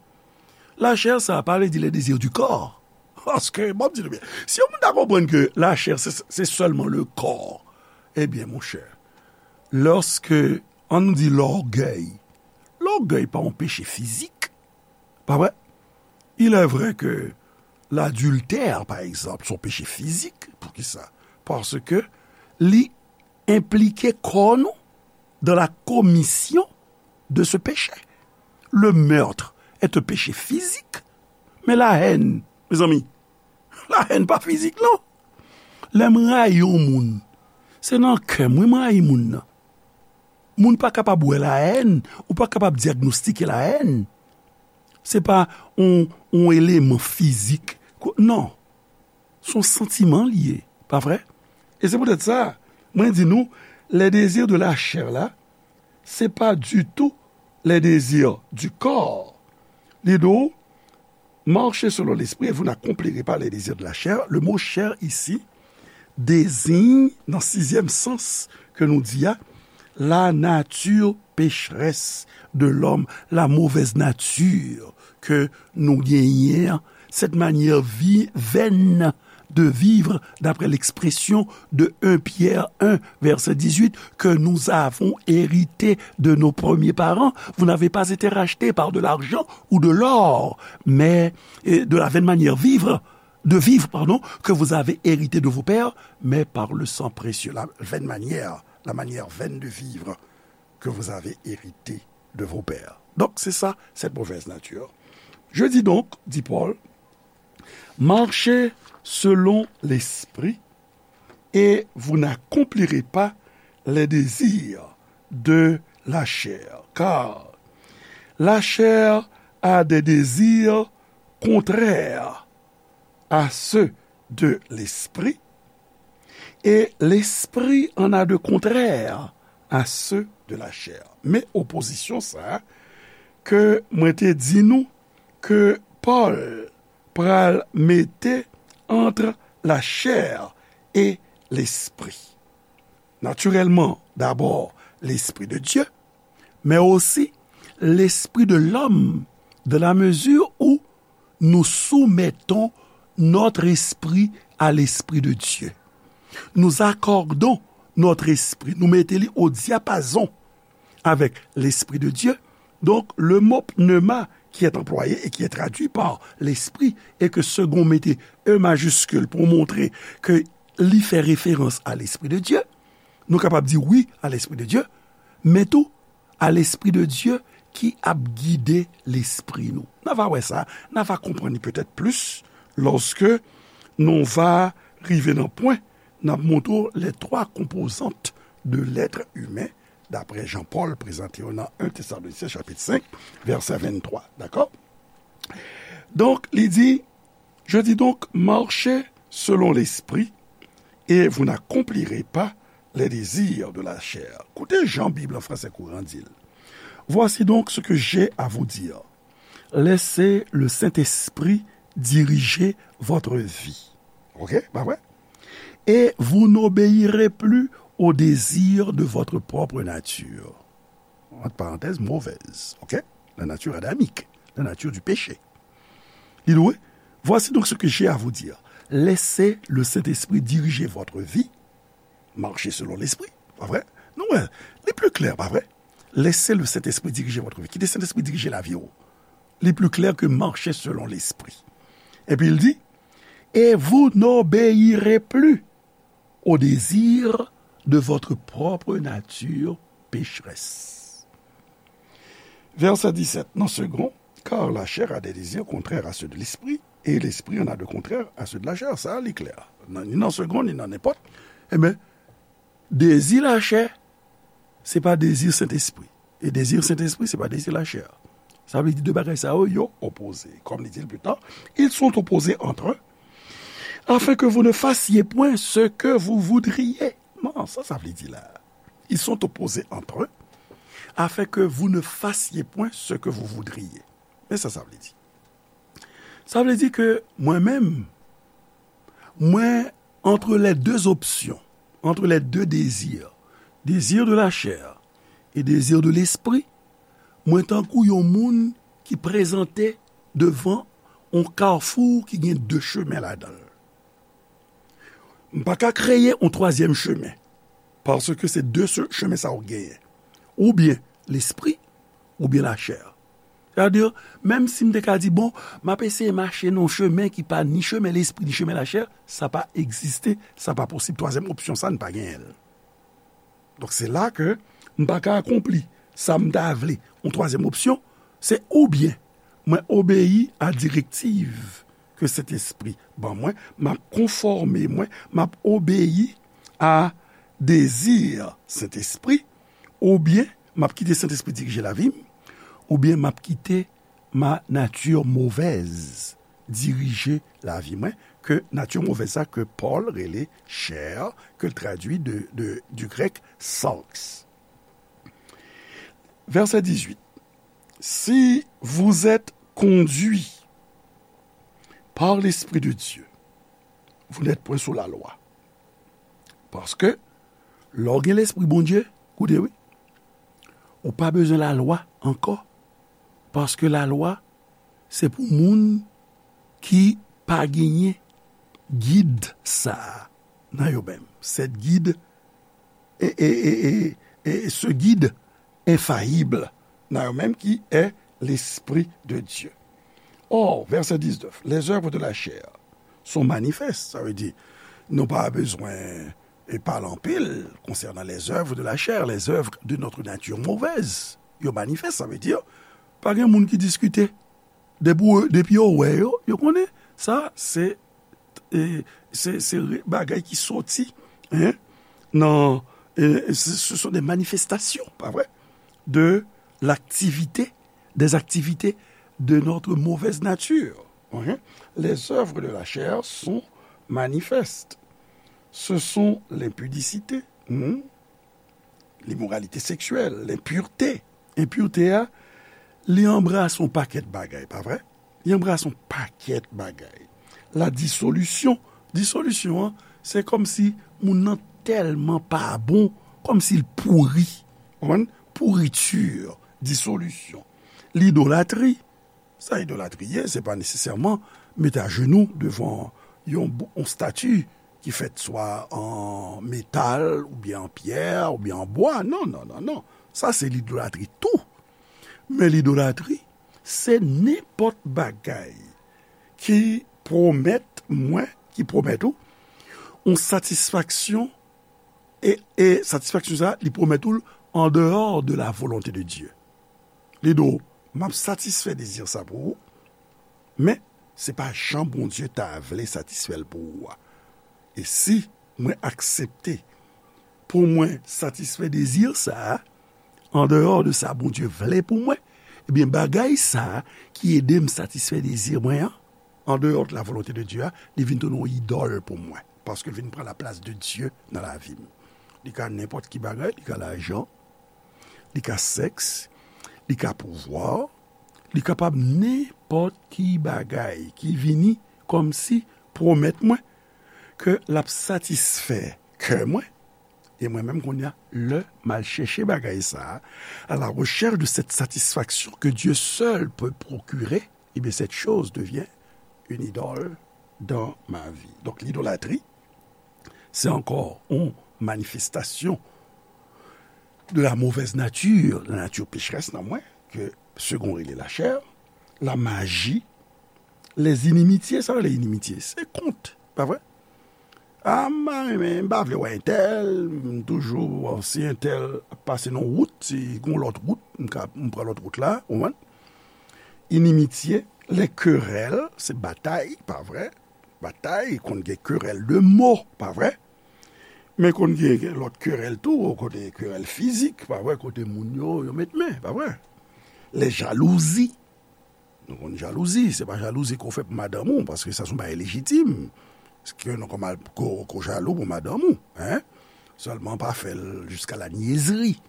La chair, sa pa vle di les désirs du corps. Paske, bon, m di nou byen, si yon moun ta konprann ke la chair, se, se sèlman le corps, ebyen, monchè, lòske, ann nou di, lògèy, lògèy pa yon peche fizik, pa vre? Il est vrai que l'adultère, par exemple, se yon peche fizik. Poukisa? Paske li enplike kò nou dans la commission de ce péché. Le meurtre est un péché physique, mais la haine, mezanmi, la haine pa fizik, non. Lè m rayi yon moun, se nan kè m, wi, m rayi moun nan. Moun pa kapab wè la haine, ou pa kapab dyagnostike la haine. Se pa yon, yon eleman fizik. Ko-, non. Se yon santiman li ye, pa vre? E se poutèt sa, mwen di nou, les désirs de la chair la, se pa ditou les désirs du corps. Li di w, marchez selon l'esprit et vous n'accomplirez pas les désirs de la chair. Le mot chair isi deziy nan sizyèm sans ke nou di a, la nature pécheresse de l'homme, la mauvaise nature ke nou genyen an, cette manière vi-, vaine de vivre, d'après l'expression de un Pierre un, verset dix-huit, que nous avons hérité de nos premiers parents. Vous n'avez pas été racheté par de l'argent ou de l'or, mais, et de la vaine manière vivre, de vivre, pardon, que vous avez hérité de vos pères, mais par le sang précieux, la vaine manière, la manière vaine de vivre que vous avez hérité de vos pères. Donc, c'est ça, cette mauvaise nature. Je dis donc, dit Paul, marchez selon l'esprit et vous n'accomplirez pas les désirs de la chair. Car la chair a des désirs contraires à ceux de l'esprit, et l'esprit en a de contraires à ceux de la chair. Men opozisyon sa a ke mwen te di nou ke Pòl pral mete entre la chair et l'esprit. Naturellement, d'abord l'Esprit de Dieu, mais aussi l'esprit de l'homme, dans la mesure où nous soumettons notre esprit à l'Esprit de Dieu. Nous accordons notre esprit, nou mete li au diapason avec l'Esprit de Dieu. Donc, le mot pneuma qui est employé et qui est traduit par l'Esprit, et que second mete E majiskil pou montre ke li fè referans a l'Esprit de Dieu, nou kapab di wi a l'Esprit de Dieu, men tou a l'Esprit de Dieu ki ap gide lespri nou. N a va wè sa, n a va konprann li petèt plis lòske nou va rive nan pwen n ap montre w les trois composantes de l'être humain, daprè Jan Pòl prezante yo nan en Tesalonisyen chapit senk, vèsè venntwa. Dakò? Donk, li di, Je dis donc, marchez selon l'esprit, et vous n'accomplirez pas les désirs de la chair. Koute jan Bib an fransè kouran di l. Voici donc ce que j'ai à vous dire. Laissez le Saint-Esprit diriger votre vie. Ok, pa vre? Et vous n'obéirez plus aux désirs de votre propre nature. Entre parenthèses, mauvaise, ok? La nature adamique, la nature du péché. Li di, voici donc ce que j'ai à vous dire. Laissez le Saint-Esprit diriger votre vie. Marchez selon l'Esprit. Pa vre? Nou wè, li pli klè, pa vre? Laissez le Saint-Esprit diriger votre vie. Kite Sentespri dirije lavi w. Li pli klè ke marchez selon l'Esprit. Epi l di, et vous n'obéirez plus aux désirs de votre propre nature pécheresse. Verset dix-sept, dans second, car la chair a des désirs contraires à ceux de l'esprit, et l'esprit en a de contraires à ceux de la chair. Sa, li klè. Nan, ni nan second, ni nan nenpòt. Ebyen, dezi lachè, se pa dezi Sentespri. E dezi Sentespri, se pa dezi lachè. Sa vle di de bagay sa yo, yo opoze. Kòm li di l pita, ils sont opposés entre eux, afin que vous ne fassiez point ce que vous voudriez. Non, sa, sa vle di la. Ils sont opposés entre eux, afin que vous ne fassiez point ce que vous voudriez. Men sa, sa vle di. Sa vle di ke mwen menm, mwen, entre les deux options, entre les deux désirs, désir de la chair et désir de l'esprit, mwen tankou yon moun ki prezante devan yon kafou ki gen de chemen ladan l. M pa ka kreye yon twazyèm chemen, paske se de se-, chemen sa yo genyen. Oubyen lespri, oubyen lachè. Sètadi, menm si m te ka di, bon, m ap eseye mache nan yon chemen ki pa ni chemen lespri, ni chemen lachè, sa pa egziste, sa pa posib. Twazyèm opsyon sa, n pa genyen l. Donk, se la ke m pa ka akonpli sa m ta vle. Yon twazyèm opsyon, se oubyen mwen obeyi a direktiv ke Sentespri ban mwen, m ap konfòme mwen, m ap obeyi a dezi Sentespri, oubyen m ap kite Sentespri dirije lavi m, oubyen m ap kite ma nature mauvaise dirije lavi mwen, ke nati movèz sa ke Pòl rele chè, ke l tradui de, de, du grec sarx. Verset dix-huit. Si vous êtes conduit par l'Esprit de Dieu, vous n'êtes point sous la loi. Paske, lè w gen Lespri Bondye, koute wi, ou pa bezwen lalwa ankò. Paske lalwa, se pou moun ki pa genyen gid sa a nan yo menm. Cette guide, et, et, et, et, et ce guide infaillible nan yo menm ki est l'Esprit de Dieu. Or, verset dix-neuf, les œuvres de la chair sont manifestes. Sa vle di, nou pa bezwen e pale anpil konsènan les œuvres de la chair, les œuvres de notre nature mauvaise. Yo manifès, sa vle di, pa gen moun ki diskite. Depi, depi yo wè yo, yo konnen sa, se, e, se, se re-, bagay ki soti, hein, nan, e, ce, ce sont des manifestations, pa vre, de l'activité, des activités de notre mauvaise nature. Hein? Les œuvres de la chair sont manifestes. Ce sont l'impudicité, hmm, l'immoralité sexuelle, l'impureté. Enpirte a, li anbrase yon pakèt bagay, pa vre? Li anbrase yon pakèt bagay. La dissolution. Disolisyon an, se kòmsi moun nan tèlman pa bon, kòmsi l pouri. Ou konprann? Pourriture, disolisyon. Lidolatri. Sa idolatri ye, se pa nesesèman mete ajenou devan yon, yon stati ki fèt swa an metal, oubyen an pyè, oubyen an bwa. Non, non, non, non. Sa se lidolatri tou. Men lidolatri, se nenpòt bagay ki pwomèt mwen, ki pwomèt ou, yon satisfaksyon, e, e satisfaksyon sa, li pwomèt ou l en dehors de la volonté de Dieu. Li di w, m ap satisfè dezi sa pou ou, men se pa jan Bondye ta vle satisfè l pou ou a. E si mwen aksepte pou mwen satisfè dezi sa a, en dehors de sa Bondye vle pou mwen, ebyen, bagay sa a ki ede m satisfè dezi mwen an, en dehors de la volonté de Dieu a, li vin tounen yon idòl pou mwen. Paske l vin pran laplas de Dye nan lavi m. Li ka nenpòt ki bagay, li ka lajan, li ka sèks, li ka pouvwa, li kapab nenpòt ki bagay ki vini kòmsi pwomèt mwen ke l ap satisfè kè mwen, e mwen menm kounye a, lè m al chèche bagay sa a, à la recherche de cette satisfaction que Dieu seul peut procurer, eh bien, cette chose devient une idole dans ma vie. Donc, l'idolâtrie, c'est encore une manifestation de la mauvaise nature, la nature pécheresse nan mwen, ke Segond rele lachè, la maji, les inimitiés, sa rele inimitye, se kont, pa vre? A, m pa renmen, m pa vle wè entèl, m toujou, si entèl ap pase nan wout, si gon lòt wout, m ka, m pran lòt wout la, ou konprann? Inimitye, les querelles, se batay, pa vre? Batay, konn gen querelle de mots, pa vre? Men konn gen lòt querelle tou, kote querelle fizik, pa vre? Kote moun yo, yo met men, pa vre? Les jalousies. Nou konn jalouzi, se pa jalouzi ke w fè pou madanm ou, paske sa se yon bagay lejitim. Ke nou konn mal ko, ko jalou pou madanm ou, hein? Sèlman pa fè l jusqu'à la niaiserie,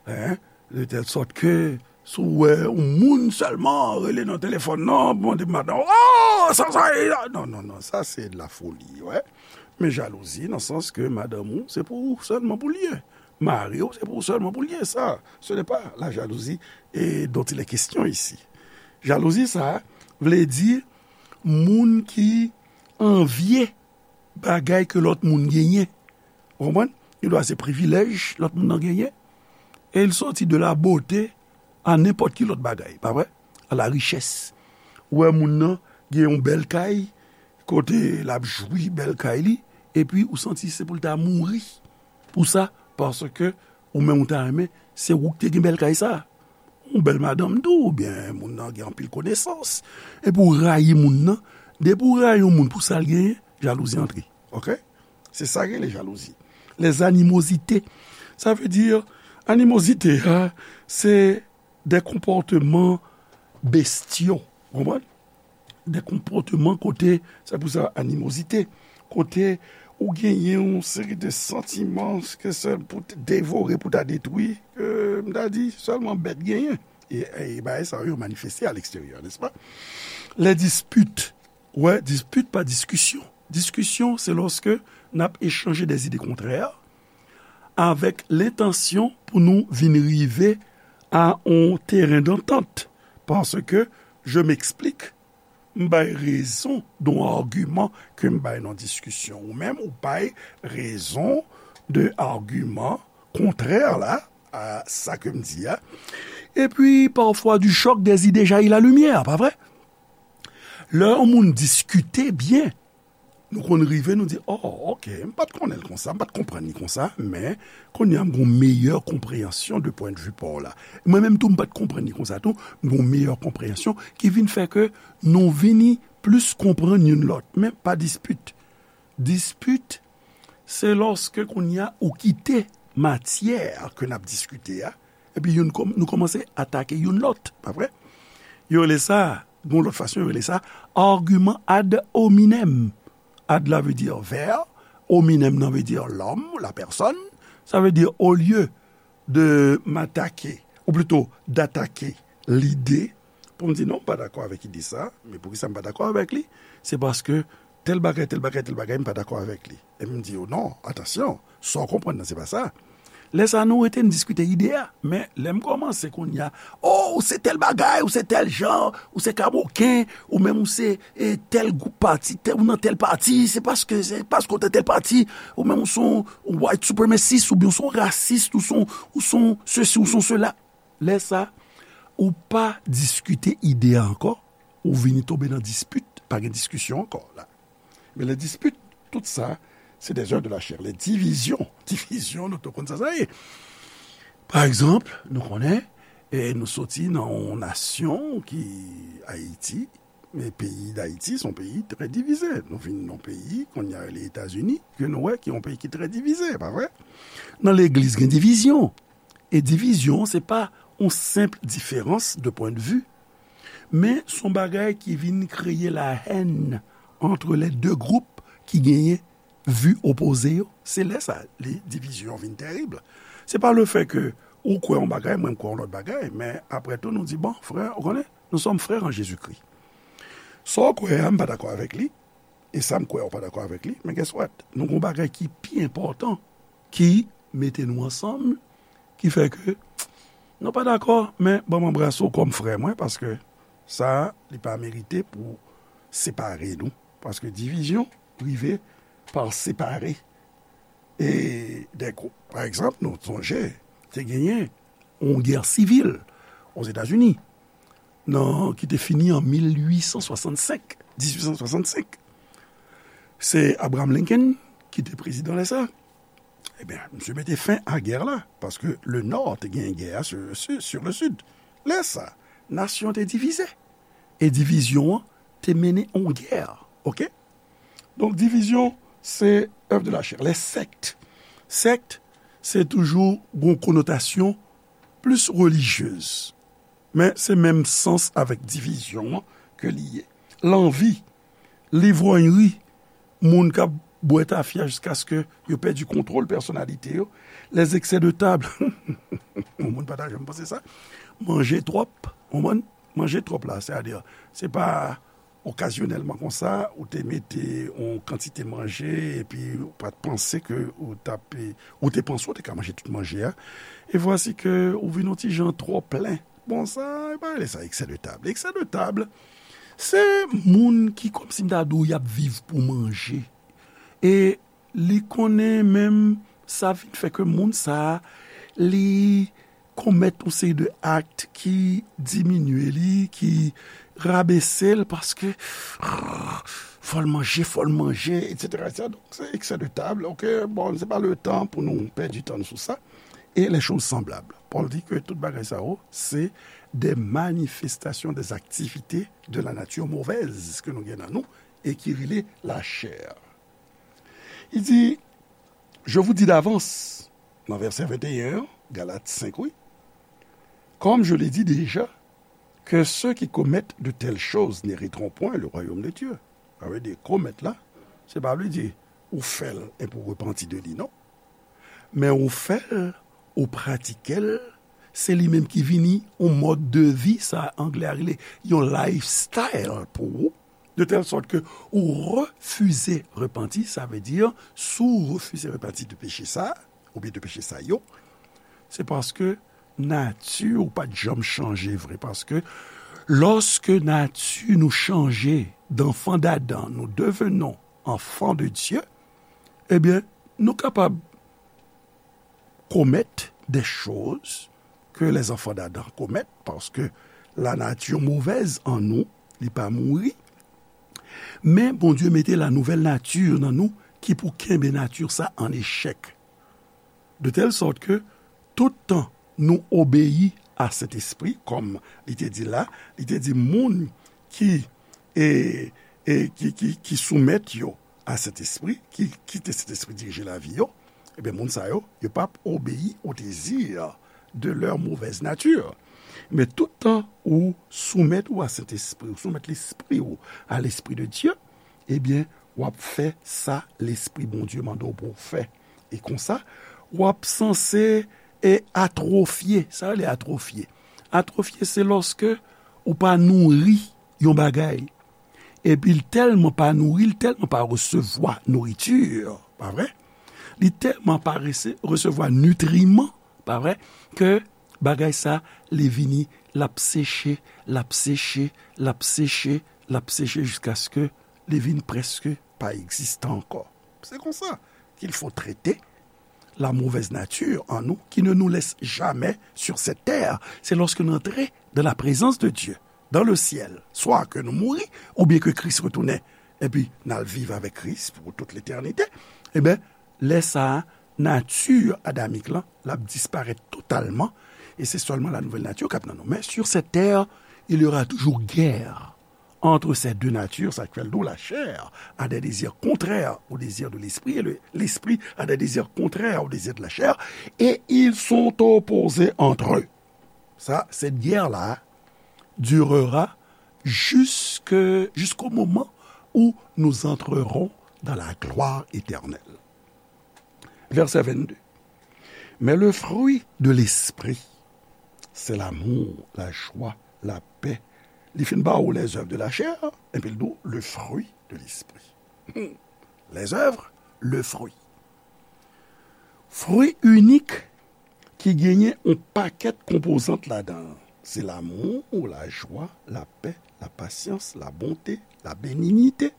hein? De telle sorte que si w wè yon moun sèlman rele nan telefòn nan, mande madanm, oh, sa, sa, e la. Non, non, non, sa se de la folie, wè. Men jalouzi, nan sans ke madanm ou, se pou ou sèlman pou l ye. Mari w, se pou ou sèlman pou l ye. Sa, ce n'est pas la jalousie et dont il est question ici. Jalouzi, sa vle di moun ki anvye bagay ke lòt moun genyen. Ou konprann? Li dwa se privilèj lòt moun nan genyen. E l soti de la beauté a nenpòt ki lòt bagay, pa vre? A la richès. Ou wè moun nan gen yon bèl kay, kote l ap jwi bèl kay li, epi ou santi se pou l ta mouri pou sa, paske ou menm ou ta renmen, se ou ki te gen bèl kay sa. Yon bèl madanm tou, oubyen moun nan gen anpil konesans. Epi w rayi moun nan. Depi w rayi yon moun pou sa l genyen, jalouzi antre. Oke? Se sa ki rele jalouzi. Les animosités. Sa vle di, animozite a, se de konpòteman bestyo. Ou konprann? De konpòteman kote, se pou sa animozite, kote ou genyen yon seri de santiman ke se pou te devore, pou ta detwi, ke m ta di sèlman bèt genyen. E, e bagay sa yo manifeste a leksteryè, nèspa? Les disputes. Wè, dispit pa diskisyon. Diskisyon, se lòske n ap echanje de ide kontrè avèk lentansyon pou nou vin rive a yon teren dantant. Paske, je m'explique, m bay rezon de yon agiman ke m bay nan diskisyon. Ou menm, ou bay rezon de agiman kontrè la a sa ke m di a. Epi, parfois, du choc des idées jaillit la lumière, pa vre? Lè yon moun diskite byen, nou konn rive, nou di, oh, ok, m pa t konnen l konsa, m pa t konprann li konsa, men kounye a m gon meyè konpreyansyon de pwendvi pa w la. Mwen menm tou, m pa t konprann li konsa tou, m gon meyè konpreyansyon ki vin fè ke nou vini plis konprann youn lòt, men pa dispit. Dispit, se lòske kounye a ou kite matyè ke n ap diskite a, epi youn kòm-, nou kòmanse atake youn lòt, pa vre? Yo rele sa, gon lòt fason yo rele sa, agiman ad hominem. Ad la vle di vè, hominem nan vle di lòm, la pèsòn. Sa vle di, olye de m atake, ou plito d atake lide, pou m di non, m pa dakò avèk ide sa, men poukisa m pa dakò avèk li? Se paske tèl bagay, tèl bagay, tèl bagay, m pa dakò avèk li. E m di yo, non, atansyon, sa w konprann nan, se pa sa. Lè sa a, nou rete n diskite ide a. Men, lè m kòmanse kounye a, oh, ou se tèl bagay, ou se tèl jan, ou se kamoken, ou menm ou se, e, tèl gwoup pati, tèl, ou nan tèl pati, se paske, se paske ou te tèl pati, ou menm ou se yon white supremacist, oubyen ou se yon rasis, ou se yon, ou se yon sesi, ou se yon sela. Lè sa, Ou pa diskite ide a ankò, ou vini tonbe nan dispit, pa gen diskisyon ankò la. Men les disputes, tout sa, se des œuvres de la chair. Les divisions, divizyon, nou tout konn sa sa ye. Pa egzanp, nou konnen, e nou soti nan yon nasyon ki Ayiti, men peyi Dayiti se yon peyi trè divize. Nou vin nan yon peyi, kounye a rele Etazini, ke nou wè ki yon peyi ki trè divize, pa vre? Nan legliz gen divizyon. E divizyon, se pa yon senp diferans de pwendvi, men se yon bagay ki vin kreye la hèn ant les deux groupes ki genyen vi opoze yo. Se lè sa, li, divizyon vin tèrib. Se pa le fait que ou kwè yon bagay, mwen m kwè yon lòt bagay, men apre tou nou di, bon, frè, ou konnen, nous sommes frères en Jésus-Christ. Sa w kwè a, m pa dakò avèk li, e sa m kwè a, ou pa dakò avèk li, men guess what? Nou gen yon bagay ki pi enpòtan ki mete nou ansanm, ki fè ke nou pa dakò, men ban m anbrase w kòm frè mwen, paske sa, li pa merite pou separe nou, paske divizyon rive pa separe. E dèkou, pa egzanp, nou sonje, te genyen yon gè sivil Ozetazini, nan, ki te fini an mil uit san swasannsenk, dizuit san swasannsenk. Se Abraham Lincoln ki te prezidan lè sa. Ebyen, misye mete fen a gè la, paske le Nò te genyen gè a sur, sur, sur le Sud. Lè sa, nasyon te divize. E divizyon an te mennen yon gè. Oke? Donk, divizyon, se œuvre de la chair. Les sectes. Sèkt, se toujou gon konotasyon plis relijyez. Men se menm sans avèk divizyon an ke li ye. Lanvi, livròyri, moun k ap bwè tafya jiskaske yo pèdi kontwòl pèsonalite yo, les excès de table. Yon moun pa ta janm panse sa. Manje twòp, ou konprann? Manje twòp la, sètadi, se pa okazyonèlman konsa, ou te mete yon kantite manje, epi ou pa t panse ke ou t ap, ou te panse ou te ka manje tout manje a, e vwasi ke ou vin yon ti jan twò plen. Bon, sa, e pa rele sa excès de table. Excès de table, se moun ki, kòmsi m ta di w, y ap viv pou manje. E li konnen menm sa vin fè ke moun sa a, li komèt yon seri de akt ki diminye li, ki rabese l, paske fò l manje, fò l manje, etsetera, etsetera. Donk, se excès de table, oke, bon, se pa le tan pou nou pèdi tan nou sou sa. E les choses semblables. Pòl di ke tout bagay sa yo, se des manifestations des activités de la nature mauvaise ke nou gen nan nou e ki rele lachè. Li di, je vous dis d'avance, nan vèsè venteyen an, Galat senk, wi, comme je l'ai dit déjà, que ceux qui commettent de telles choses n'hériteront point le royaume de Dieu. Sa vle di, komèt la, se pa vle di ou fè l epi w repanti de li, non. Men ou fè l, ou pratike l, se li menm ki vini yon mòd de vi, sa anglè a rele yon lifestyle pou ou, de telle sorte que ou refize repanti, sa vle di, si w refize repanti de peche sa, oubyen de peche sa yo, se paske nati w pa t janm chanje vre, paske lòske nati nou chanje, d'enfant d'Adam, nous devenons enfants de Dieu, ebyen, nou kapab commettre des choses que les enfants d'Adam commettent, paske la nature mauvaise en nous, li pa mouri. Men Bondye mete la nouvelle nature nan nou ki pou kenbe nati sa an echèk. De telle sorte que tout tan nou obeyi a Sentespri, kòm li te di la, li te di moun ki, e, e, ki, ki, ki soumèt yo a Sentespri, ki kite Sentespri dirije lavi yo, ebyen, moun sa yo, yo p ap obeyi au désir de leur mauvaise nature. Men tout tan ou soumèt ou a Sentespri, ou soumèt lespri ou a l'Esprit de Dieu, ebyen, w ap fè sa Lespri Bondye mande w pou w fè. E konsa, w ap sanse e atwofye. Sa rele atwofye. Atwofye, se lòske ou pa nouri yon bagay. Epi l tèlman pa nouri, l tèlman pa resevwa nouriti, pa vre? Li tèlman pa rese-, resevwa nitriman, pa vre? Ke bagay sa, li vini, l ap seche, l ap seche, l ap seche, l ap seche jiskaske li vin prèske pa egziste ankò. Se konsa qu'il faut traiter la mauvaise nature en nous qui ne nous laisse jamais sur cette terre. Se lòske n antre dans la présence de Dieu, dans le ciel, swa ke nou mouri, oubyen ke Kris retounen, epi n al viv avèk Kris pou tout letènite, ebyen, lè sa a, nati adamik lan, l ap disparèt totalman, e se sèlman la nouvèl nati k ap nan nou. Men, sur cette terre, il y aura toujours guerre entre ces deux natures, sa k fè l di w, la chair a des désirs contraires aux désirs de l'esprit, et le, l'esprit a des désirs contraires aux désirs de la chair, et ils sont opposés entre eux. Sa, cette guerre-là durera jusque, jusqu'au moment où nous entrerons dans la gloire éternelle. Verset vingt-deux. Mais le fruit de l'esprit, c'est l'amour, la joie, la paix. Li fin ba ou les œuvres de la chair, epi l di w le fruit de l'esprit. Hmm. Les œuvres, le fruit. Fwi inik ki genyen yon pakèt konpozant ladan l. Se lanmou, lajwa, lapè, lapasyans, labonte, labenignite,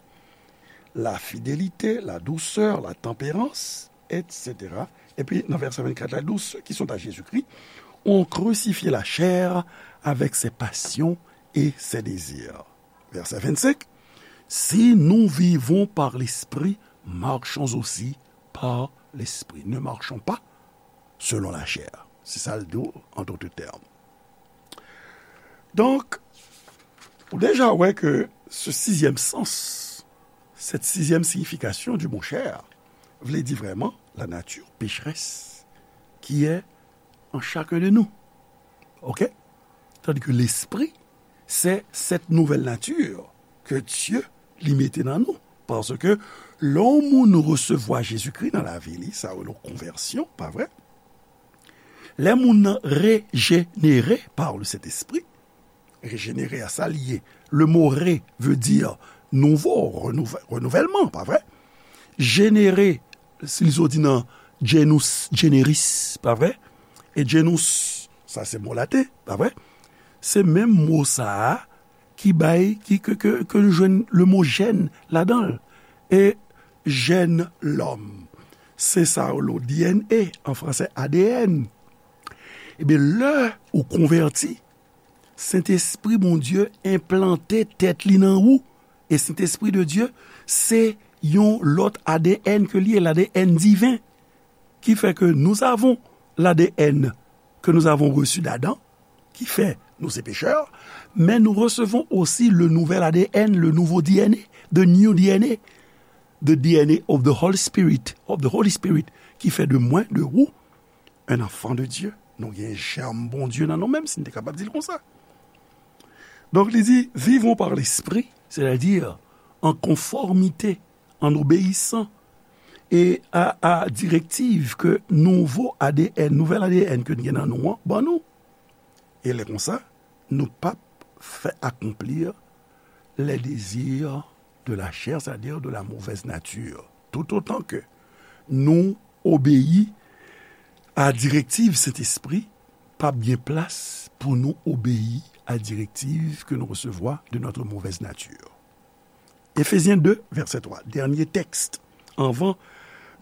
lafidelite, ladousè, latanperans, etsetera. Epi nan vèsè vennkat la, li di, ceux qui sont à Jésus-Christ ont crucifié la chair avec ses passions et ses désirs. Verset vingt-cinq, si nous vivons par l'Esprit, marchons aussi par l'Esprit. Ne marchons pas selon la chair. Se sa l di w, en d'autres termes. Donk, ou deja wè ke ce sixième sens, cette sixième signification du mot chair, vle di vrèman la nature pécheresse qui est en chacun de nous. Ok? Tandis que l'esprit, c'est cette nouvelle nature que Dieu li mete nan nou. Paske lè yon moun resevwa Jezikri nan lavi li, sa rele yon konvèsyon, pa vre? Lè moun nan rejenere par le Sentespri, rejenere a sa l ye. Le mo re veut dire nouveau, renouve-, renouvellement, pa vre? Jenere, si li soti nan genus generis, pa vre? E genus, sa se mo laten, pa vre? Se menm mo sa a ki bay, ki, ke, ke, ke nou jwenn le mo jèn ladan l. E jèn lòm, se sa yo rele D N A, an fransè A D N. Ebyen, lè ou konvèti, Sentespri Bondye enplante tèt li nan ou. E Sentespri de Dye, se yon lòt A D N ke li ye, l A D N diven. Qui fait que nous avons l'A D N que nous avons reçu d'Adam, qui fait nous ces pécheurs, mais nous recevons aussi le nouvel A D N, le nouveau D N A, the new D N A, the D N A of the Holy Spirit, of the Holy Spirit, qui fait de moi, de vous, un enfant de Dieu. Nou gen jèm Bondye nan nou, menm si n te kapab di l konsa. Donk, li di, vivons par l'esprit, c'est-à-dire en conformité, en obéissant, e a, a direktiv ke nouvo A D N, nouvèl A D N ke n gen nan nou an, ban nou. E lè konsa, nou p ap fè akonpli les désirs de la chair, c'est-à-dire de la mauvaise nature. Tout autant que nou obeyi a direktiv Sentespri, p ap gen plas pou nou obeyi a direktiv ke nou resevwa de notre mauvaise nature. Efezyen de, vèsè twa, dènye tèks. Anvan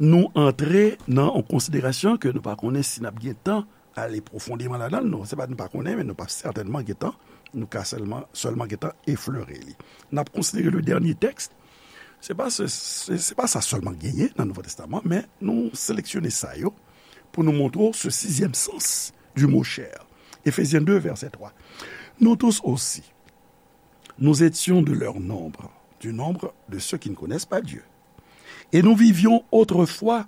nou antre nan yon konsiderasyon ke nou pa konnen si n ap gen tan ale pwofondeman ladan l, non, se pa nou pa konnen, men nou p ap sètènman gen tan, nou ka sèlman, sèlman gen tan eflere li. N ap konsidere le dènye tèks. Se pa se, se, se pa sa sèlman genyen nan Nouvo Testaman, men nou seleksyone sa yo pou nou montre w ce sixième sens du mot chair. Éphésiens deux, verset trois. Nous tous aussi, nous étions de leur nombre, du nombre de ceux qui ne connaissent pas Dieu. Et nous vivions autrefois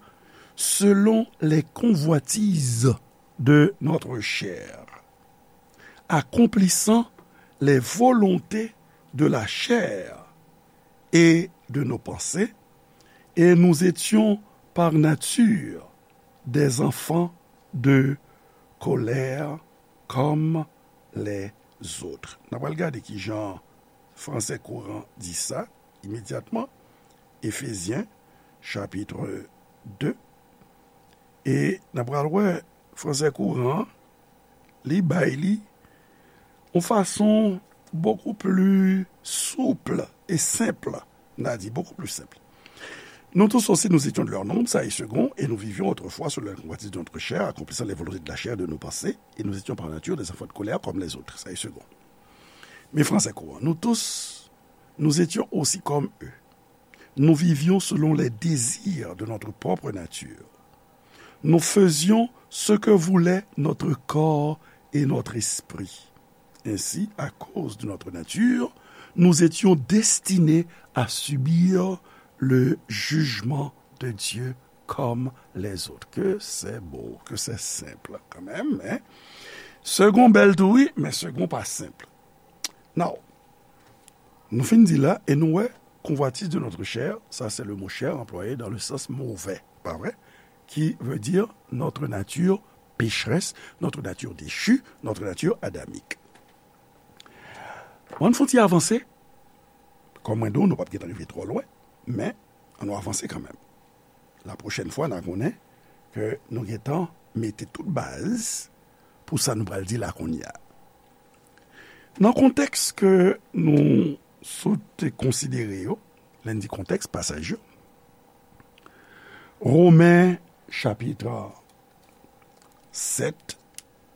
selon les convoitises de notre chair, accomplissant les volontés de la chair et de nos pensées, et nous étions par nature des enfants de colère comme les autres. N a pral gade ki jan fransè kouran di sa imedyatman. Efezyen, chapit de. E n a pral wè fransè kouran an, li bay li yon fason beaucoup plus souple et simple. N a di beaucoup plus simple. Nous tous aussi, nous étions de leur nombre, ça est second, et nous vivions autrefois selon la convoitise de notre chair, accomplissant les volontés de la chair et de nos pensées, et nous étions par nature des enfants de colère comme les autres, ça est second. Mais français courant, nous tous, nous étions aussi comme eux. Nous vivions selon les désirs de notre propre nature. Nous faisions ce que voulait notre corps et notre esprit. Ainsi, à cause de notre nature, nous étions destinés à subir le jugement de Dieu comme les autres. Que c'est beau, que c'est simple quand même, hein? Second bèl tou wi, men second pa senp. Now, nou fin di la, e nou wè, convoitise de notre chair, ça c'est le mot chair employé dans le sens mauvais, pas vrai? Qui veut dire notre nature pécheresse, notre nature déchue, notre nature adamique. Ann fon ti avanse, kòm mwen di w, nou p ap gentan rive twò lwen, men ann nou avanse kanmenm. La pwochèn fwa, n a konnen ke nou gentan mete tout baz pou sa nou pral di la kounye a. Nan kontèks ke nou sot konsidere yo, lè n di kontèks, pasaj yo, Women chapit sèt,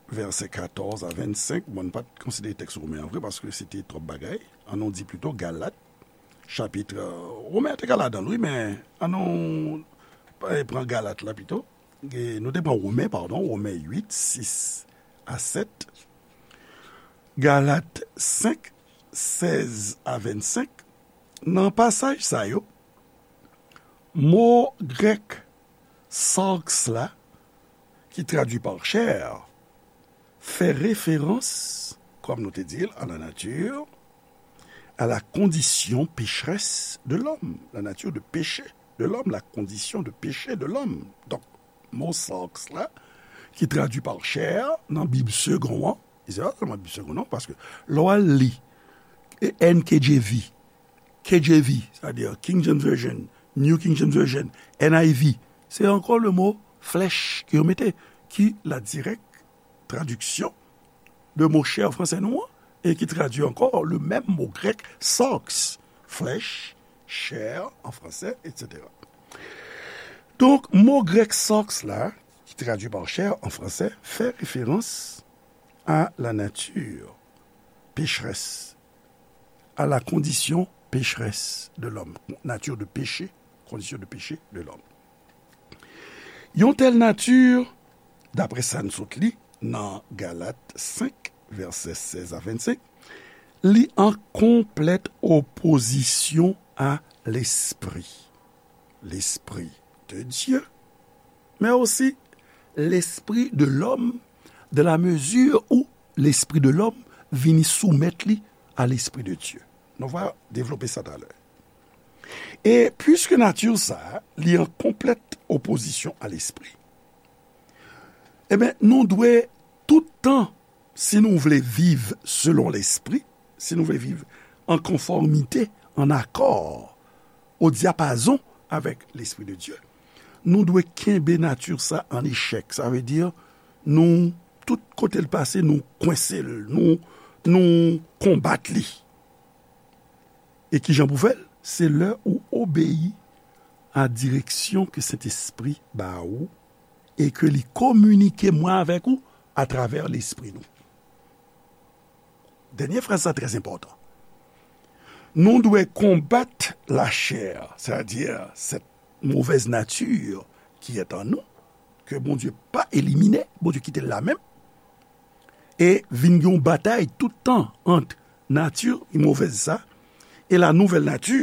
vèsè katòz a vennsenk, bon, n pa t konsidere tèks Women an vre, paske se te twòp bagay. Ann nou di pito Galat, chapit, Women an te ka ladan l, wi, men ann nou pran Galat la pito. E nou te pran Women, padon, Women uit, sis a sèt, Galat senk, sèz a vennsenk. Nan pasaj sa yo, mo grèk sarx la, ki tradui pa chair, fè referans, kòm nou te di l, à la nature, à la condition pécheresse de l'homme, la nature de péché de l'homme, la condition de péché de l'homme. Donk, mo sarx la, ki tradui pa chair nan Bib Segond an, e se pa sèlman Bib Segond non, paske lè w al li N K J V, K J V, c'est-à-dire King James Version, New King James Version, N I V, se ankò le mo flesh ke yo mete, ki la dirèk tradiksyon de mo chair fransè nou an, e ki tradui ankò le menm mo grèk sarx, flesh, chair en français, et cetera. Donk, mo grèk sarx la, ki tradui pa chair en français, fè referans à la nature pécheresse, à la condition pécheresse de l'homme, nature de péché, condition de péché de l'homme. Yon tèl nati, daprè sa n sot li nan Galat senk, vèsè sèz a vennsenk, li an konplèt opozisyon a lespri. Lespri de Dye, men osi lespri de lòm, de la mezi ou lespri de lòm vini soumèt li a lespri de Dye. Nou va devlope sa talè. E piske nati sa a, li an konplèt opozisyon a lespri, ebyen, nou dwe tout tan, si nou vle viv selon lespri, si nou vle viv an konfòmite, an akò, o dyapazon avèk lespri de Dye, nou dwe kenbe nati sa an echèk. Sa vle di, nou, tout kote l pase, nou kwense l, nou, nou konbat li. E kijan pou fè l? Se lè ou obeyi a direksyon ke Sentespri ba ou e ke li kominike mwen avèk ou atravè lespri nou. Dènye fraz sa trè enpòtan. Nou dwe konbat lachè, sètadi sèt movèz nati ki èt an nou, ke Bondye pa elimine, Bondye kite l la menm, e vin gen yon batay tout tan ant nati movèz sa e la nouvèl nati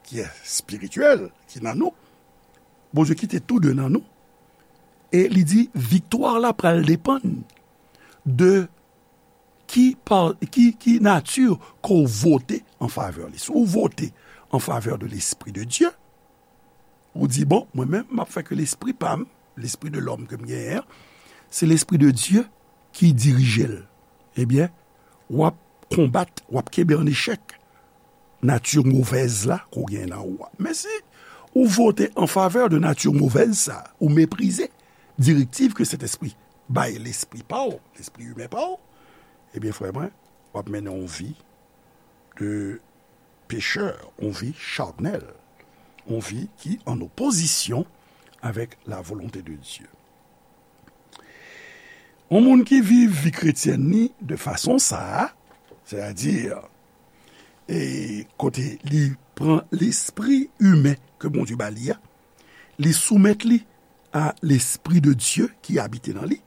ki espirityèl ki nan nou. Bondye kite tou de nan nou. E li di, viktwa la pral depann de ki, pa, ki, ki nati ke w vote an favè li. Si w vote an favè de Lespri de Dye, ou di, bon, mwen menm, m ap fè ke lespri pa m, lespri de lòm ke m genyen an, se Lespri de Dye ki dirije l. Ebyen, w ap konbat, w ap kenbe an echèk nati movèz la ke w gen nan ou a. Men si ou vote an favè de nati movèz sa, ou meprize direktiv ke Sentespri bay lespri pa w, lespri imen pa w, ebyen, frè mwen, w ap mennen yon vi de pechè, yon vi chanèl. yon vi ki an opozisyon avèk la volonte de Dye. Yon moun ki viv vi kretyèn li de fason sa a, sètadi, e kote li pran lespri imen ke Bondye ba li a, li soumèt li a lespri de Dye ki abite nan li,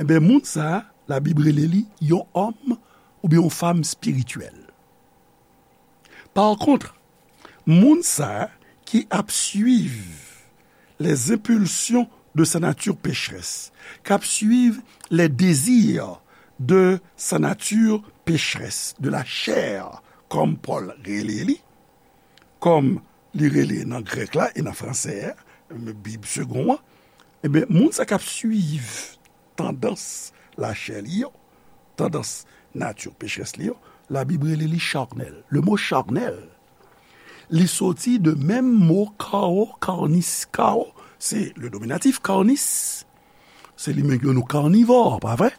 enben, moun sa a, Labib rele li yon òm oubyen yon fanm espirityèl. Par contre, moun sa a ki ap suiv les impulsions de sa nature pécheresse, k ap suiv les désirs de sa nature pécheresse, de la chair, kòm Pòl rele li, kòm li rele nan grèk la e nan fransè a, Bib segon an, ebyen, moun sa k ap suiv tandans lachè li yo, tandans nati pecherès li yo, Labib rele li charnèl. Le mo charnèl, li soti de menm mo kawo, karnis. Kawo, se le nominatif, karnis, se li menm yo nou karnivò, pa vre?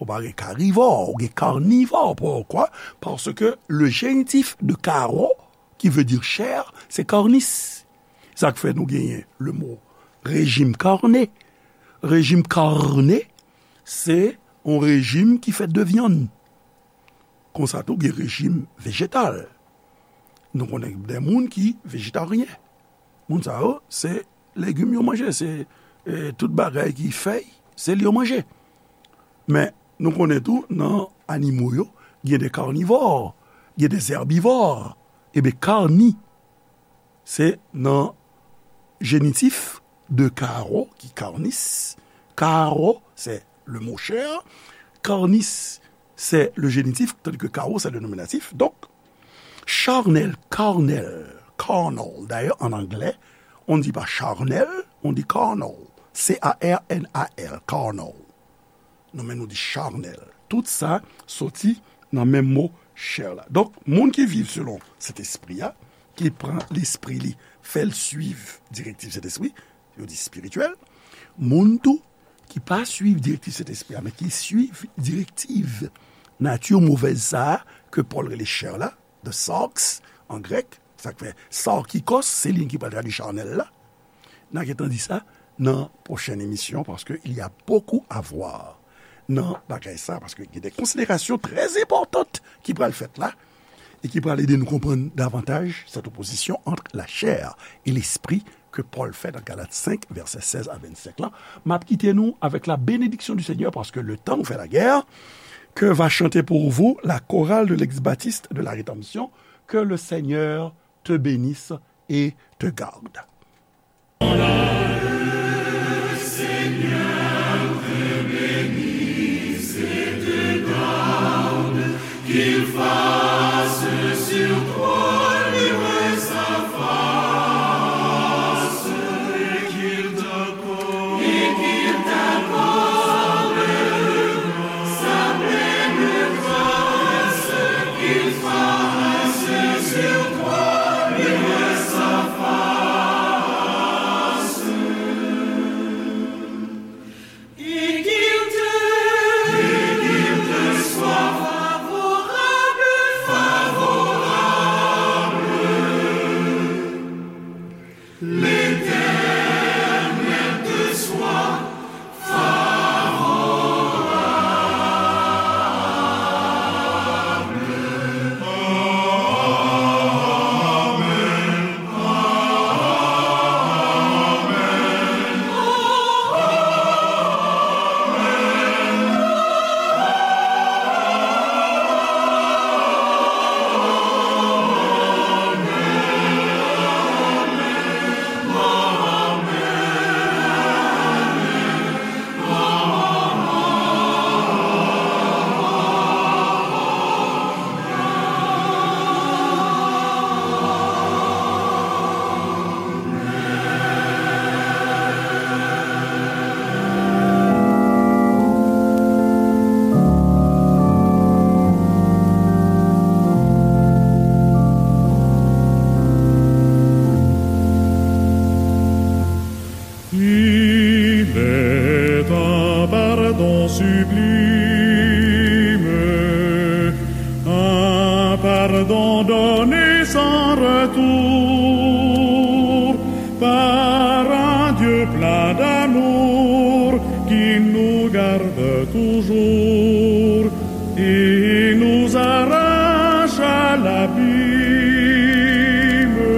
Ou pa gen karivò, ou gen karnivò. Poukwa? Paske le jenitif de kawo, ki vle di chè, se karnis. Sa k fè nou genyen le mo rejim karne. Rejim karne, se yon rejim ki fèt de vyann. Konsa tou, gen rejim vejetal. Nou konnen gen moun ki vejetaryen. Moun sa yo, se legim yo manje, se, e, tout bagay ki fèy, se li yo manje. Men, nou konnen tou, nan animo yo, gen de karnivò, gen de zèbivò. Ebyen, karni, se nan jenitif de karo, ki karnis. Karo, se le mo chè. Karnis, se le jenitif, tandis ke karo, se le nominatif. Donk, charnèl, karnèl, carnal. D'ailleurs, en anglais, on ne dit pas charnel, on dit carnal. C A R N A L, carnal. Nou menm nou di charnèl. Tout sa soti nan menm mo chè la. Donk, moun ki viv selon Sentespri a, ki pran lespri li, fè l suiv direktiv Sentespri, yo di espirityèl. Moun tou ki pa suiv direktiv Sentespri a, men ki suiv direktiv nati movèz sa a ke Pòl rele chè la, the sarx an grèk, sa k fè sarkikos, se li ki pral tradui charnèl la. N a gentan di sa nan pwochèn emisyon, paske il y a beaucoup à voir nan bagay sa, paske gen de konsiderasyon trè enpòtan ki pral fèt la, e ki pral ede nou konprann davantaj cette opposition entre la chair et l'esprit ke Pòl fè nan Galat senk, vèsè sèz a vennsenk lan. M ap kite nou avec la bénédiction du Seigneur, parce que le temps nous fait la guerre. Que va chanter pour vous la chorale de l'ex-baptiste de la rédemption. Que le Seigneur te bénisse et te garde.